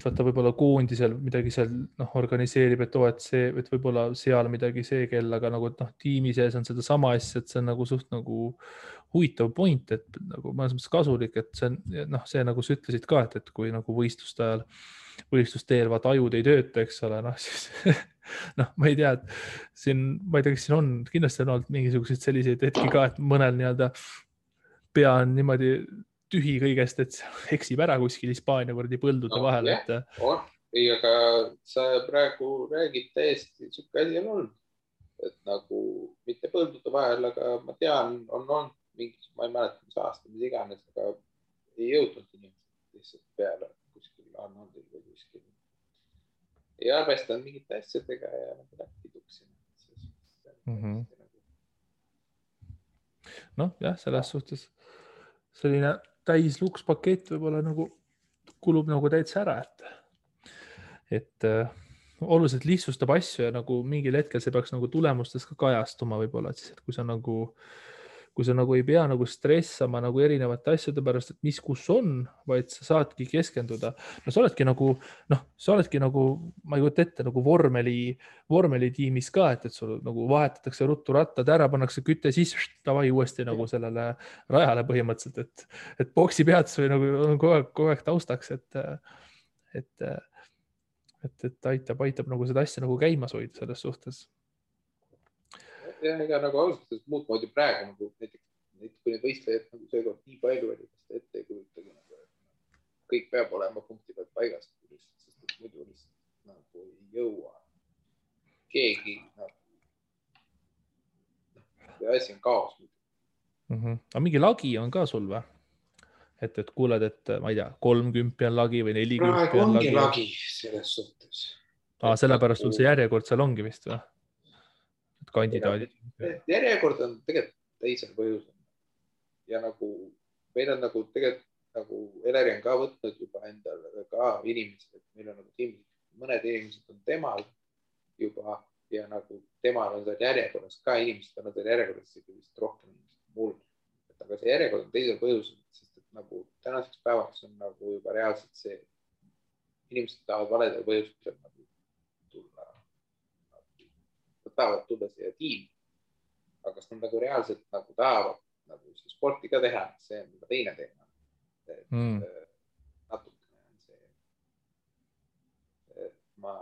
vaata võib-olla koondisel midagi seal organiseerib, et et võib-olla seal midagi see kell, aga nagu tiimi sees on seda sama asja, et see on nagu suht nagu huvitav point, et nagu mõnes mõttes kasulik, et see on see nagu sa ütlesid ka, et kui nagu võistluste ajal, võistlusteel vaata ajud ei tööta, eks ole, siis ma ei tea, et siin, ma ei tea, kas siin on, kindlasti on olnud mingisuguseid selliseid hetki ka, et mõnel nii-öelda pea on niimoodi tühi kõigest, et eksib ära kuskil Hispaania võrdi põldude vahel. On. Ei, aga sa praegu räägid täiesti, siuke asi on olnud, et nagu mitte põldude vahel, aga ma tean, on olnud mingis, ma ei mäleta, mis aasta, mis iganes, aga ei jõudnud inimesed lihtsalt peale kuskil Arnoldil või kuskil. Ei arvestanud mingite asjadega ja nagu läbi tuksin. Jah, selles suhtes selline täislukspakett võib-olla nagu kulub nagu täitsa ära, et oluliselt lihtsustab asju ja nagu mingil hetkel see peaks nagu tulemustes ka kajastuma võib-olla, et siis, et kui sa nagu ei pea nagu stressama nagu erinevate asjade pärast, et mis kus on, vaid sa saadki keskenduda. Sa oledki nagu, ma ei kujuta ette, nagu vormelitiimis ka, et sul nagu vahetatakse ruttu rattad ära, pannakse küte siis tavai uuesti nagu sellele rajale põhimõtteliselt, et boksi peatus või nagu on kogu aeg taustaks, et aitab nagu seda asja nagu käimas hoida selles suhtes. Ja ega nagu ausalt muud moodi praegu nagu näiteks kui need võistlejad nagu seekord nii palju oli, kas ette ei kujutagi nagu, et kõik peab olema punkti pealt paigast, sest muidu lihtsalt nagu ei jõua keegi nagu, asi on kaos. Aga mingi lagi on ka sul või? Et kuuled, et ma ei tea, 30 on lagi või 40 praegu on ongi lagi selles suhtes. Sellepärast sul see järjekord seal ongi vist või? Kandidaadid. Järjekord on tegelikult teisel põhjusel. Ja nagu meil on nagu tegelikult nagu Eleri on ka võtnud juba endale ka inimesed, et meil on nagu tiimis, mõned inimesed on temal juba ja nagu temal on seal järjekorras ka inimesed on seal järjekorras vist rohkem inimesed mul. Aga see järjekord on teisel põhjusel, sest et nagu tänaseks päevaks on nagu juba reaalselt see, inimesed tahavad valedel põhjustel nagu tulla. Nad tahavad tulla siia tiimi, aga kas nad nagu reaalselt nagu tahavad nagu sporti ka teha, see on juba teine teema. Natukene on see, et ma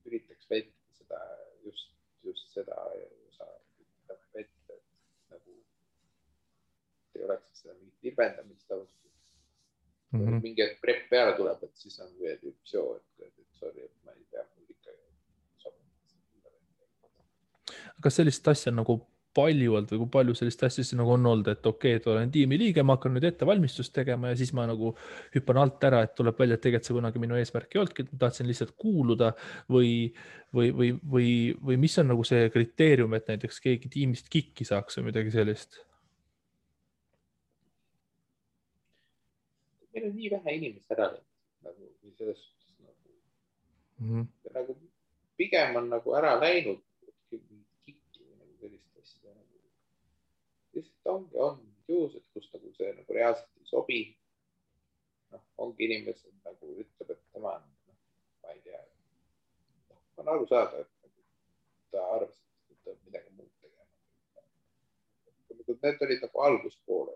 üritaks vältida seda, just seda osa vältida, et nagu ei oleks seda mingit libendamist mingi prep peale tuleb, et siis on veel üks joo, et sorry, et ma ei tea, mul ikka kas sellist asja nagu palju olnud või kui palju sellist asja siis nagu on olnud, et okei, et olen tiimi liige, ma hakkan nüüd ettevalmistust tegema ja siis ma nagu hüppan alt ära, et tuleb välja, et tegelikult see kunagi minu eesmärk ei olnudki, et ma tahtsin lihtsalt kuuluda või mis on nagu see kriteerium, et näiteks keegi tiimist kikki saaks või midagi sellist? Meil on nii vähe inimest ära nagu selles suhtes nagu pigem on nagu ära läinud lihtsalt on juhused, kus nagu see nagu reaalselt ei sobi. Ongi inimesed nagu ütleb, et tema on, ma ei tea, on aru saada, et ta arvas, et ta midagi muud tegema. Need olid nagu alguspoole.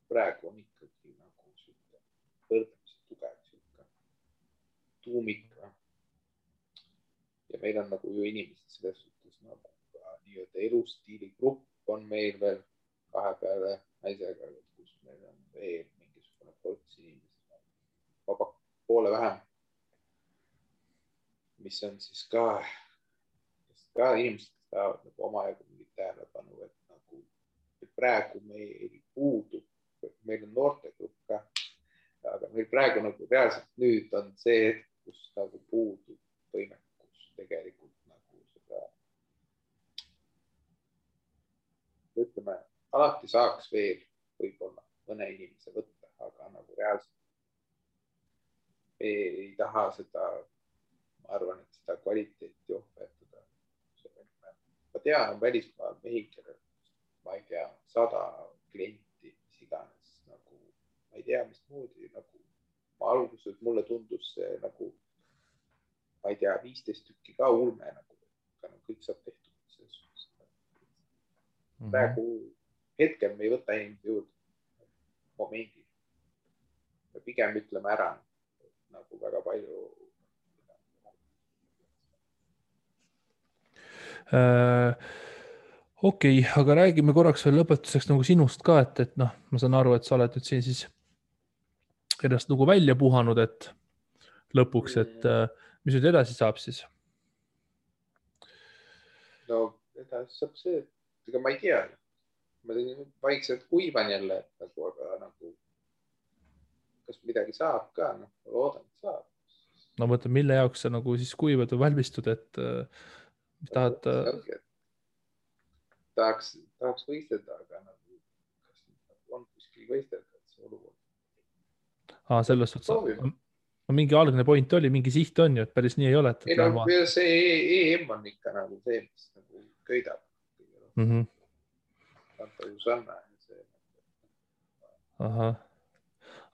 Praegu on ikkagi nagu võrdlemisi tugev tuumik. Ja meil on nagu ju inimesed selles suhtes nagu nii-öelda elustiili grupp on meil veel kahe peale naisega, kus meil on veel mingisugune ports inimesed, vaba poole vähem, mis on siis ka inimesed tahavad nagu omajagu mingit tähelepanu, et nagu praegu meil puudub, meil on noortegrupp ka, aga meil praegu nagu reaalselt nüüd on see, kus nagu puudub võimekus tegelikult nagu seda ütleme, alati saaks veel võib-olla mõne inimese võtta, aga nagu reaalselt ei taha seda, ma arvan, et seda kvaliteeti ohverdada. Ma tean, on välismaal mehi, kellel, ma ei tea, 100 klienti, mis iganes, nagu, ma ei tea, mis moodi, nagu ma alguses mulle tundus see nagu, ma ei tea, 15 tükki ka ulme, nagu kõik saab tehtud. Praegu hetkel me ei võta inimesi juurde momendil. Me pigem ütleme ära nagu väga palju. Okei, aga räägime korraks veel lõpetuseks nagu sinust ka, et noh, ma saan aru, et sa oled nüüd siin siis ennast nagu välja puhanud, et lõpuks, et mis nüüd edasi saab siis? No edasi saab see, et ega ma ei tea. Ma vaikselt kuivan jälle, nagu, aga nagu kas midagi saab ka, noh, loodan, et saab. No mõtled, mille jaoks sa nagu siis kuivad või valmistud, et mis tahad? Tahaks võistelda, aga nagu, kas on kuskil võistelda, et see olukord. Selles suhtes, mingi algne point oli, mingi siht on ju, et päris nii ei ole. Ei no see EM on ikka nagu see, mis nagu köidab. Anta Jusanna. Ahah.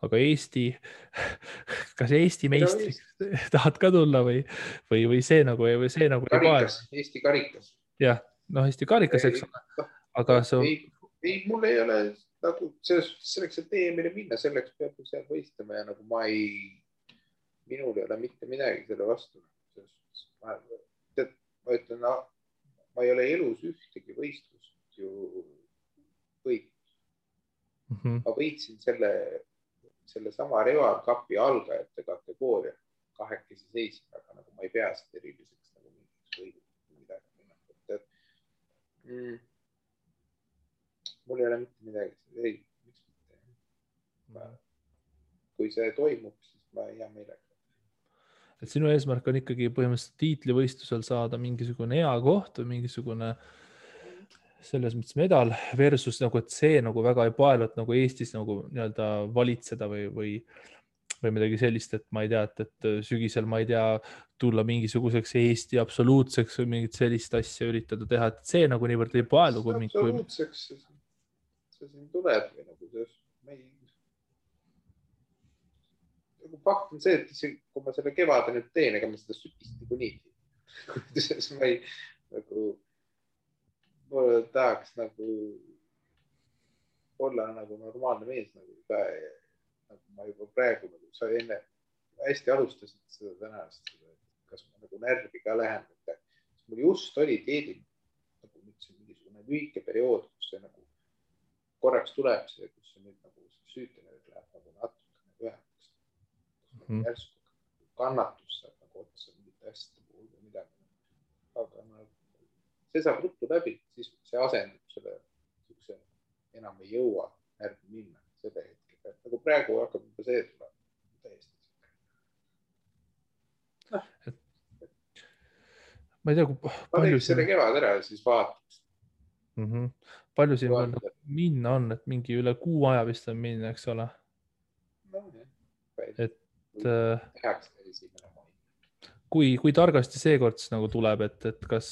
Aga Eesti, kas Eesti meistriks tahad ka tulla või see nagu ei karikas, Eesti karikas. Jah, noh, Eesti karikas, eks ole. Aga ei, mul ei ole nagu selleks, et EM-ile minna, selleks peab seal võistlema ja nagu minul ei ole mitte midagi selle vastu. Ma ütlen, ma ei ole elus ühtegi võistlust ju võitnud. Ma võitsin selle sama Reval Cupi algajate kategooria 2 seisma, aga nagu ma ei pea seda eriliseks nagu mingiks võidud midagi. Mul ei ole mitte midagi. Ei, miks mitte? Kui see toimub, siis ma hea meelega. Et sinu eesmärk on ikkagi põhimõtteliselt tiitlivõistlusel saada mingisugune hea koht või mingisugune selles mõttes medal versus nagu, et see nagu väga ei paelu, et nagu Eestis nagu nii-öelda valitseda või midagi sellist, et ma ei tea, et sügisel ma ei tea, tulla mingisuguseks Eesti absoluutseks või mingit sellist asja üritada teha, et see nagu niivõrd ei paelu. Absoluutseks see siin tuleb või nagu fakt on see, et kui ma selle kevade nüüd teen, ega ma seda sügist nagu nii. Ma ei nagu mulle tahaks nagu olla nagu normaalne mees nagu ka nagu ma juba praegu nagu sa enne hästi alustasid seda tänast, kas ma nagu närvi ka lähen, mul just oli teedil nagu mingisugune lühike periood, kus see nagu korraks tuleb see, kus see nüüd nagu süütene läheb nagu natuke ühemaks. Järsku kannatus saab nagu otsa mingite asjade puhul või midagi. Aga see saab ruttu läbi, siis see asendub selle, enam ei jõua närvi minna selle hetke. Nagu praegu hakkab juba see tuleb täiesti. Ma ei tea, ma teeks selle kevad ära ja siis vaataks. Palju siin veel minna on, et mingi üle kuu aja vist on minna, eks ole? No, et kui targasti seekord nagu tuleb, et kas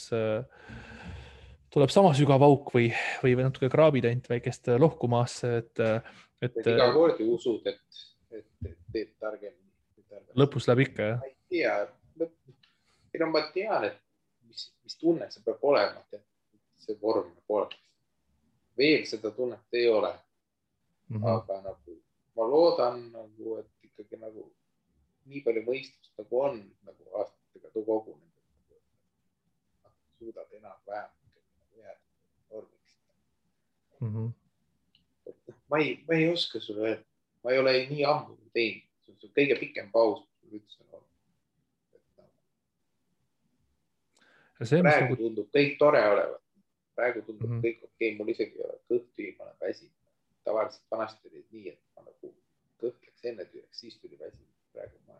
tuleb sama sügav auk või natuke kraabid ainult väikest lohku maasse, et iga kord ju usud, et teed targemini. Lõpus läheb ikka, jah? Ma ei tea. Ma tean, et mis tunne see peab olema, et see vorm pole. Veel seda tunnet ei ole. Aga nagu ma loodan, nagu, et ikkagi nagu nii palju mõistust nagu on nagu aastatega kogunenud. Suudad enam-vähem jääda vormiks. Ma ei oska sulle öelda. Ma ei ole nii ammu teinud. See on kõige pikem paus, mis üldse on olnud. Praegu tundub kõik tore olevat. Praegu tundub kõik okei. Mul isegi ei ole kõht ma olen väsinud. Tavaliselt vanasti oli nii, et ma nagu kõhtleks enne tüüaks, siis tuli väsinud. Praegu ma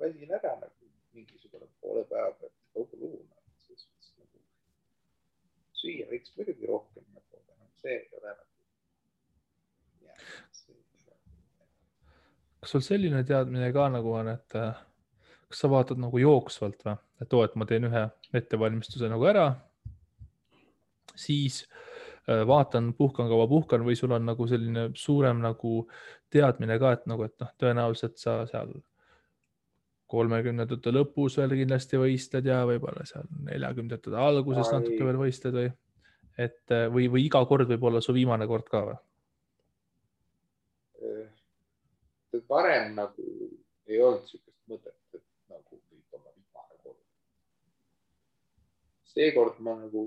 väsin ära nagu mingisugune poole päeva pealt kogu luuna. Nagu, süüa võiks muidugi rohkem, aga see ei ole nagu kas sul selline teadmine ka nagu on, et kas sa vaatad nagu jooksvalt või, et oo, et ma teen ühe ettevalmistuse nagu ära, siis vaatan, puhkan kaua puhkan või sul on nagu selline suurem nagu teadmine ka, et nagu, et noh, tõenäoliselt sa seal 30ndate lõpus veel kindlasti võistled ja võib-olla seal 40ndate alguses natuke veel võistled või, et või iga kord võib olla su viimane kord ka või? Varem nagu ei olnud sihukest mõtet, et nagu võib olla viimane kord. Seekord ma nagu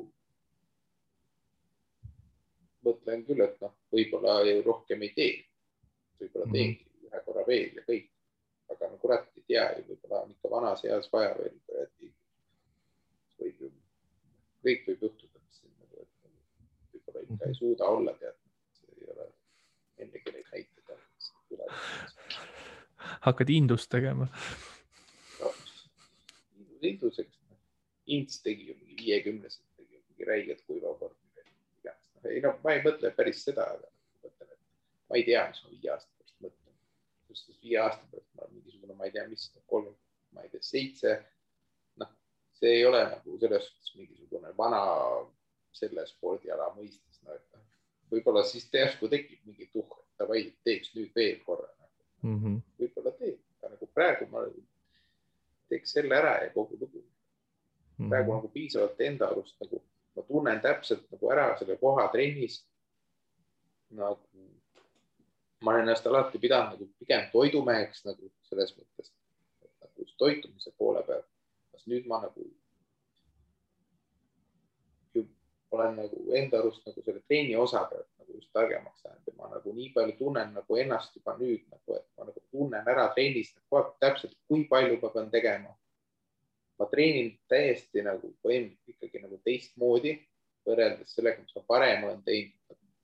mõtlen küll, et noh, võib-olla rohkem ei tee. Võib-olla teengi ühe korra veel ja kõik. Aga no kurat ei tea ju, võib-olla on ikka vanas eas vaja veel. Kõik võib juhtuda, et võib-olla ikka ei suuda olla teadnud. See ei ole ennegi neid näiteid. Hakkad indust tegema? Induseks. Ints tegi ju mingi 50-sed, tegi mingi räiged kuivakord. Ei, no, ma ei mõtle päris seda, aga mõtlen, et ma ei tea, mis ma 5 aasta pärast mõtlen. Just 5 aasta pärast ma olen mingisugune, ma ei tea, mis 3, ma ei tea, 7. Noh, see ei ole nagu selles suhtes mingisugune vana selle spordiala mõistes. No, et võib-olla siis järsku tekib mingi tuhk, et davai, teeks nüüd veel korra. Võib-olla teeb, aga nagu praegu ma teeks selle ära ja kogu lugu. Praegu nagu piisavalt enda arust nagu ma tunnen täpselt nagu ära selle koha trennis. Nagu ma olen ennast alati pidanud nagu pigem toidumeheks nagu selles mõttes, et nagu toitumise poole peal. Kas nüüd ma nagu olen nagu enda arust nagu selle treeni osa pealt nagu just targemaks saanud ja ma nagu nii palju tunnen nagu ennast juba nüüd nagu, et ma nagu tunnen ära trennis täpselt, kui palju ma pean tegema. Ma treenin täiesti nagu ikkagi nagu teistmoodi võrreldes sellega, mis ma parem olen teinud.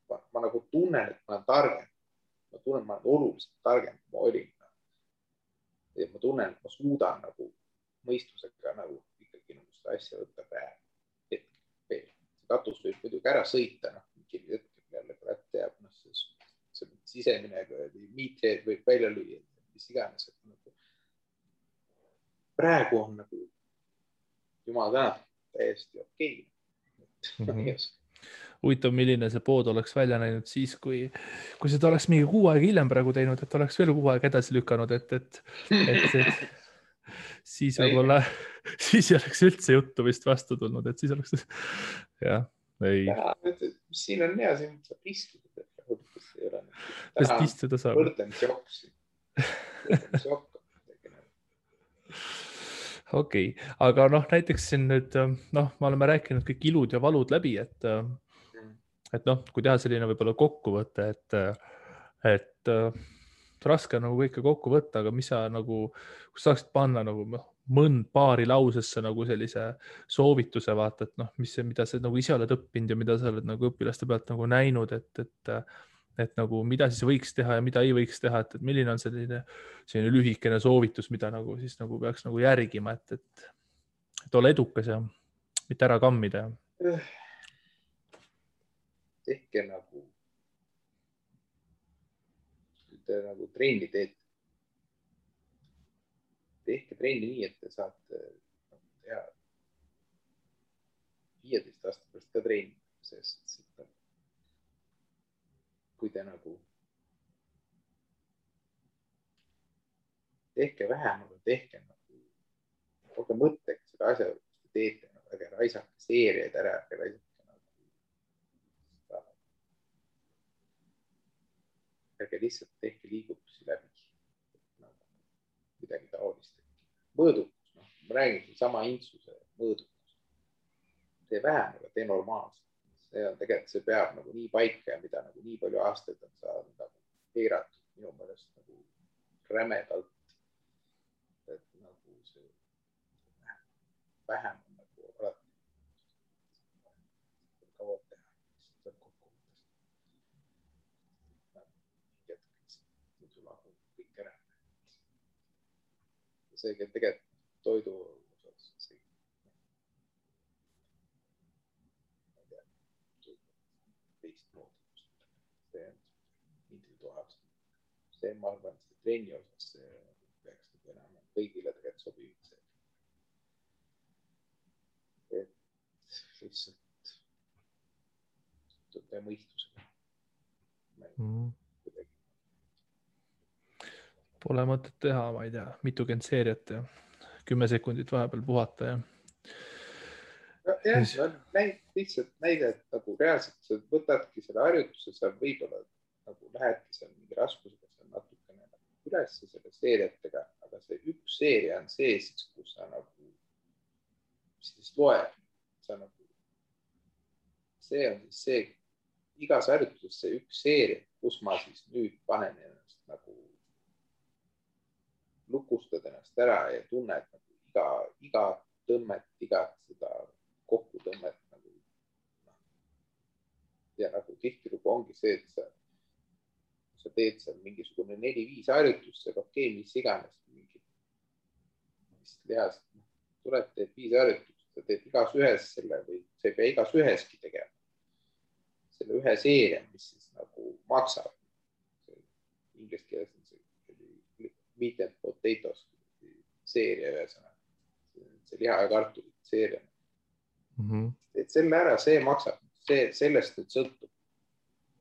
Ma nagu tunnen, et ma olen targem. Ma tunnen, et ma olen oluliselt targem, kui ma olin. Ja ma tunnen, et ma suudan nagu mõistusega nagu ikkagi nagu seda asja võtta praegu. Katus võib muidugi ära sõita, mingi hetkel jälle kurat teab, see sisemine miitreed võib välja lüüa, mis iganes. Praegu on nagu jumal tänatud täiesti okei. Huvitav, milline see pood oleks välja näinud siis, kui seda oleks mingi 6 aega hiljem praegu teinud, et oleks veel 6 aega edasi lükanud, et siis võib-olla, siis ei oleks üldse juttu vist vastu tulnud, et siis oleks, jah, ei. Siin on hea, siin saab istuda. Täna istuda saab. Võrdlemisi joksi. Okei, aga noh, näiteks siin nüüd, noh, me oleme rääkinud kõik ilud ja valud läbi, et noh, kui teha selline võib-olla kokkuvõte, et raske on nagu kõike kokku võtta, aga mis sa nagu, kus saaksid panna nagu mõnd paari lausesse nagu sellise soovituse vaata, et noh, mida sa nagu ise oled õppinud ja mida sa oled nagu õpilaste pealt nagu näinud, et nagu mida siis võiks teha ja mida ei võiks teha, et milline on selline lühikene soovitus, mida nagu siis nagu peaks nagu järgima, et ole edukas ja mitte ära kammida. Tehke nagu trenni teete. Tehke trenni nii, et te saate teha 15 aasta pärast ka trenni, sest kui te nagu tehke vähem, aga tehke nagu, olge mõttega seda asja, mis te teete, ärge raisake seeriaid ära, ärge raisake nagu, ärge lihtsalt tehke liigutusi läbi, midagi taolist. Mõõdukus, ma räägin sama intsuse mõõdukus. Tee vähem, aga tee normaalselt. See on tegelikult, see peab nagu nii paika ja mida nagu nii palju aastaid on saanud nagu piiratud minu meelest nagu rämedalt. Et nagu see vähem on nagu alati kaua teha. See on kokkuvõttes. Muidu lahub kõik ära. See tegelikult toidu osas see, ma arvan, see trenni osas see peaks enam kõigile tegelikult sobiv. Et lihtsalt tõe mõistusega. Pole mõtet teha, ma ei tea, mitukümmend seeriat ja 10 sekundit vahepeal puhata ja. Lihtsalt näide, et nagu reaalselt sa võtadki selle harjutuse, sa võib-olla nagu lähedki seal mingi raskusega seal natukene üles selle seeriatega, aga see üks seeria on see siis, kus sa nagu siis loeb. Sa nagu, see on siis see, igas harjutuses see üks seeria, kus ma siis nüüd panen ennast nagu lukustad ennast ära ja tunned nagu iga tõmmet, igat seda kokkutõmmet nagu. Ja nagu tihtilugu ongi see, et sa teed seal mingisugune 4-5 harjutust, see okei, mis iganes mingi lihast, tuled, teed 5 harjutust, sa teed igas ühes selle või sa ei pea igas üheski tegema. Selle ühe seeria, mis siis nagu maksab. Inglise keeles on see meat and potatoes seeria ühesõnaga. See liha ja kartulit seeria. Et selle ära, see maksab. Sellest nüüd sõltub.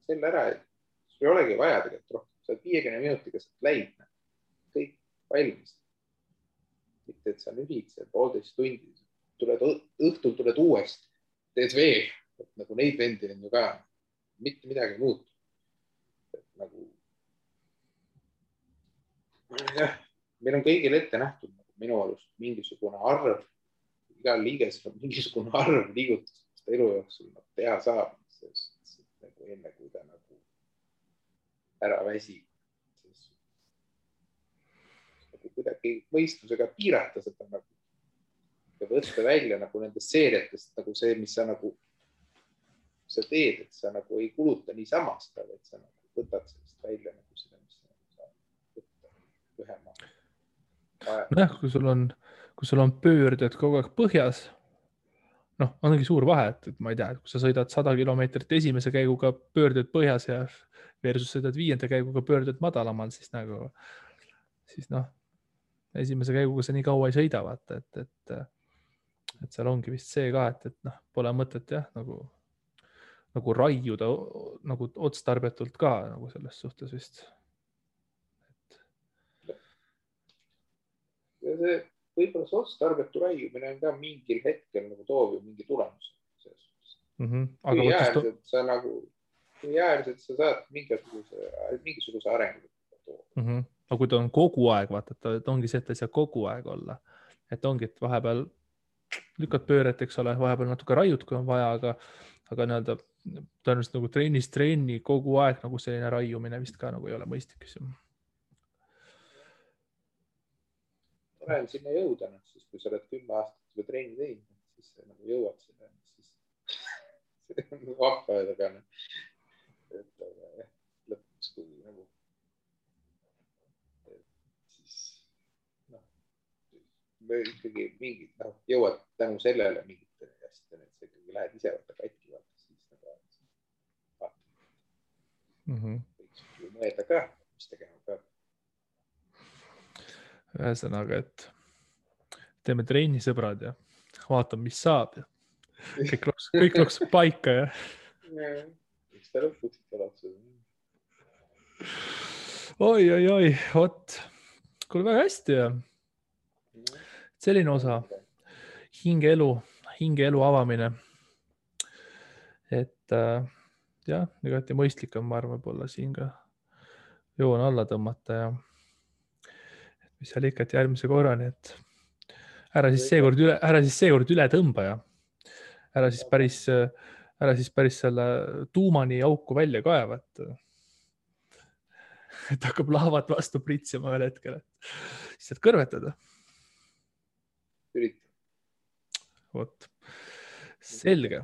Selle ära, et sul ei olegi vaja tegelikult rohkem. Sa 50 minutiga saad läid. Kõik valmis. Mitte, et sa nühid see 1,5 tundi. Õhtul tuled uuesti. Teed veel. Nagu neid vendi on ju ka. Mitte midagi muutu. Nagu jah, meil on kõigil ette nähtud nagu minu arust mingisugune arv, igal liigesel on mingisugune arv liigutust, mis ta elu jooksul teha saab, nagu enne kui ta nagu ära väsib. Nagu kuidagi mõistusega piirata seda nagu ja võtta välja nagu nendest seeriatest nagu see, mis sa nagu sa teed, et sa nagu ei kuluta niisama seda, et sa nagu võtad sellest välja nagu seda, mis sa saab võtta ühema. Nojah, kui sul on pöörded kogu aeg põhjas, ongi suur vahe, et ma ei tea, kui sa sõidad 100 kilomeetrit esimese käiguga pöörded põhjas ja versus sõidad 5. käiguga pöörded madalamal, siis esimese käiguga sa nii kaua ei sõida, vaata, et seal ongi vist see ka, et pole mõtet jah, nagu raiuda nagu otstarbetult ka nagu selles suhtes vist. Ja see võib-olla see otstarbetu raiumine on ka mingil hetkel nagu toov ju mingi tulemus. Kui äärselt sa saad mingisuguse arengu. Aga kui ta on kogu aeg, vaata, et ongi see, et ta ei saa kogu aeg olla. Et ongi, et vahepeal lükkad pööret, eks ole, vahepeal natuke raiud, kui on vaja, aga nii-öelda tõenäoliselt nagu trenni kogu aeg nagu selline raiumine vist ka nagu ei ole mõistlik. Olen sinna jõuda, siis kui sa oled 10 aastat juba trenni teinud, siis nagu jõuad sinna, siis see on vahva öelda, et lõpuks kui nagu siis ikkagi mingid jõuad tänu sellele mingite asjadele, et sa ikkagi lähed ise võtta katki, siis võiks mõelda ka, mis tegema peab. Ühesõnaga, et teeme trenni, sõbrad, ja vaatame, mis saab ja kõik loksub paika ja. Eks ta lõpuks loksub. Oi, vot. Kuule väga hästi ja selline osa hingeelu avamine. Et jah, igati mõistlik on, ma arvan, võib-olla siin ka joon alla tõmmata ja mis seal ikka, et järgmise korrani, et ära siis seekord üle tõmba ja ära siis päris selle tuumani auku välja kaeva, et hakkab laavad vastu pritsima ühel hetkel, et siis saad kõrvetada. Ürita. Vot, selge.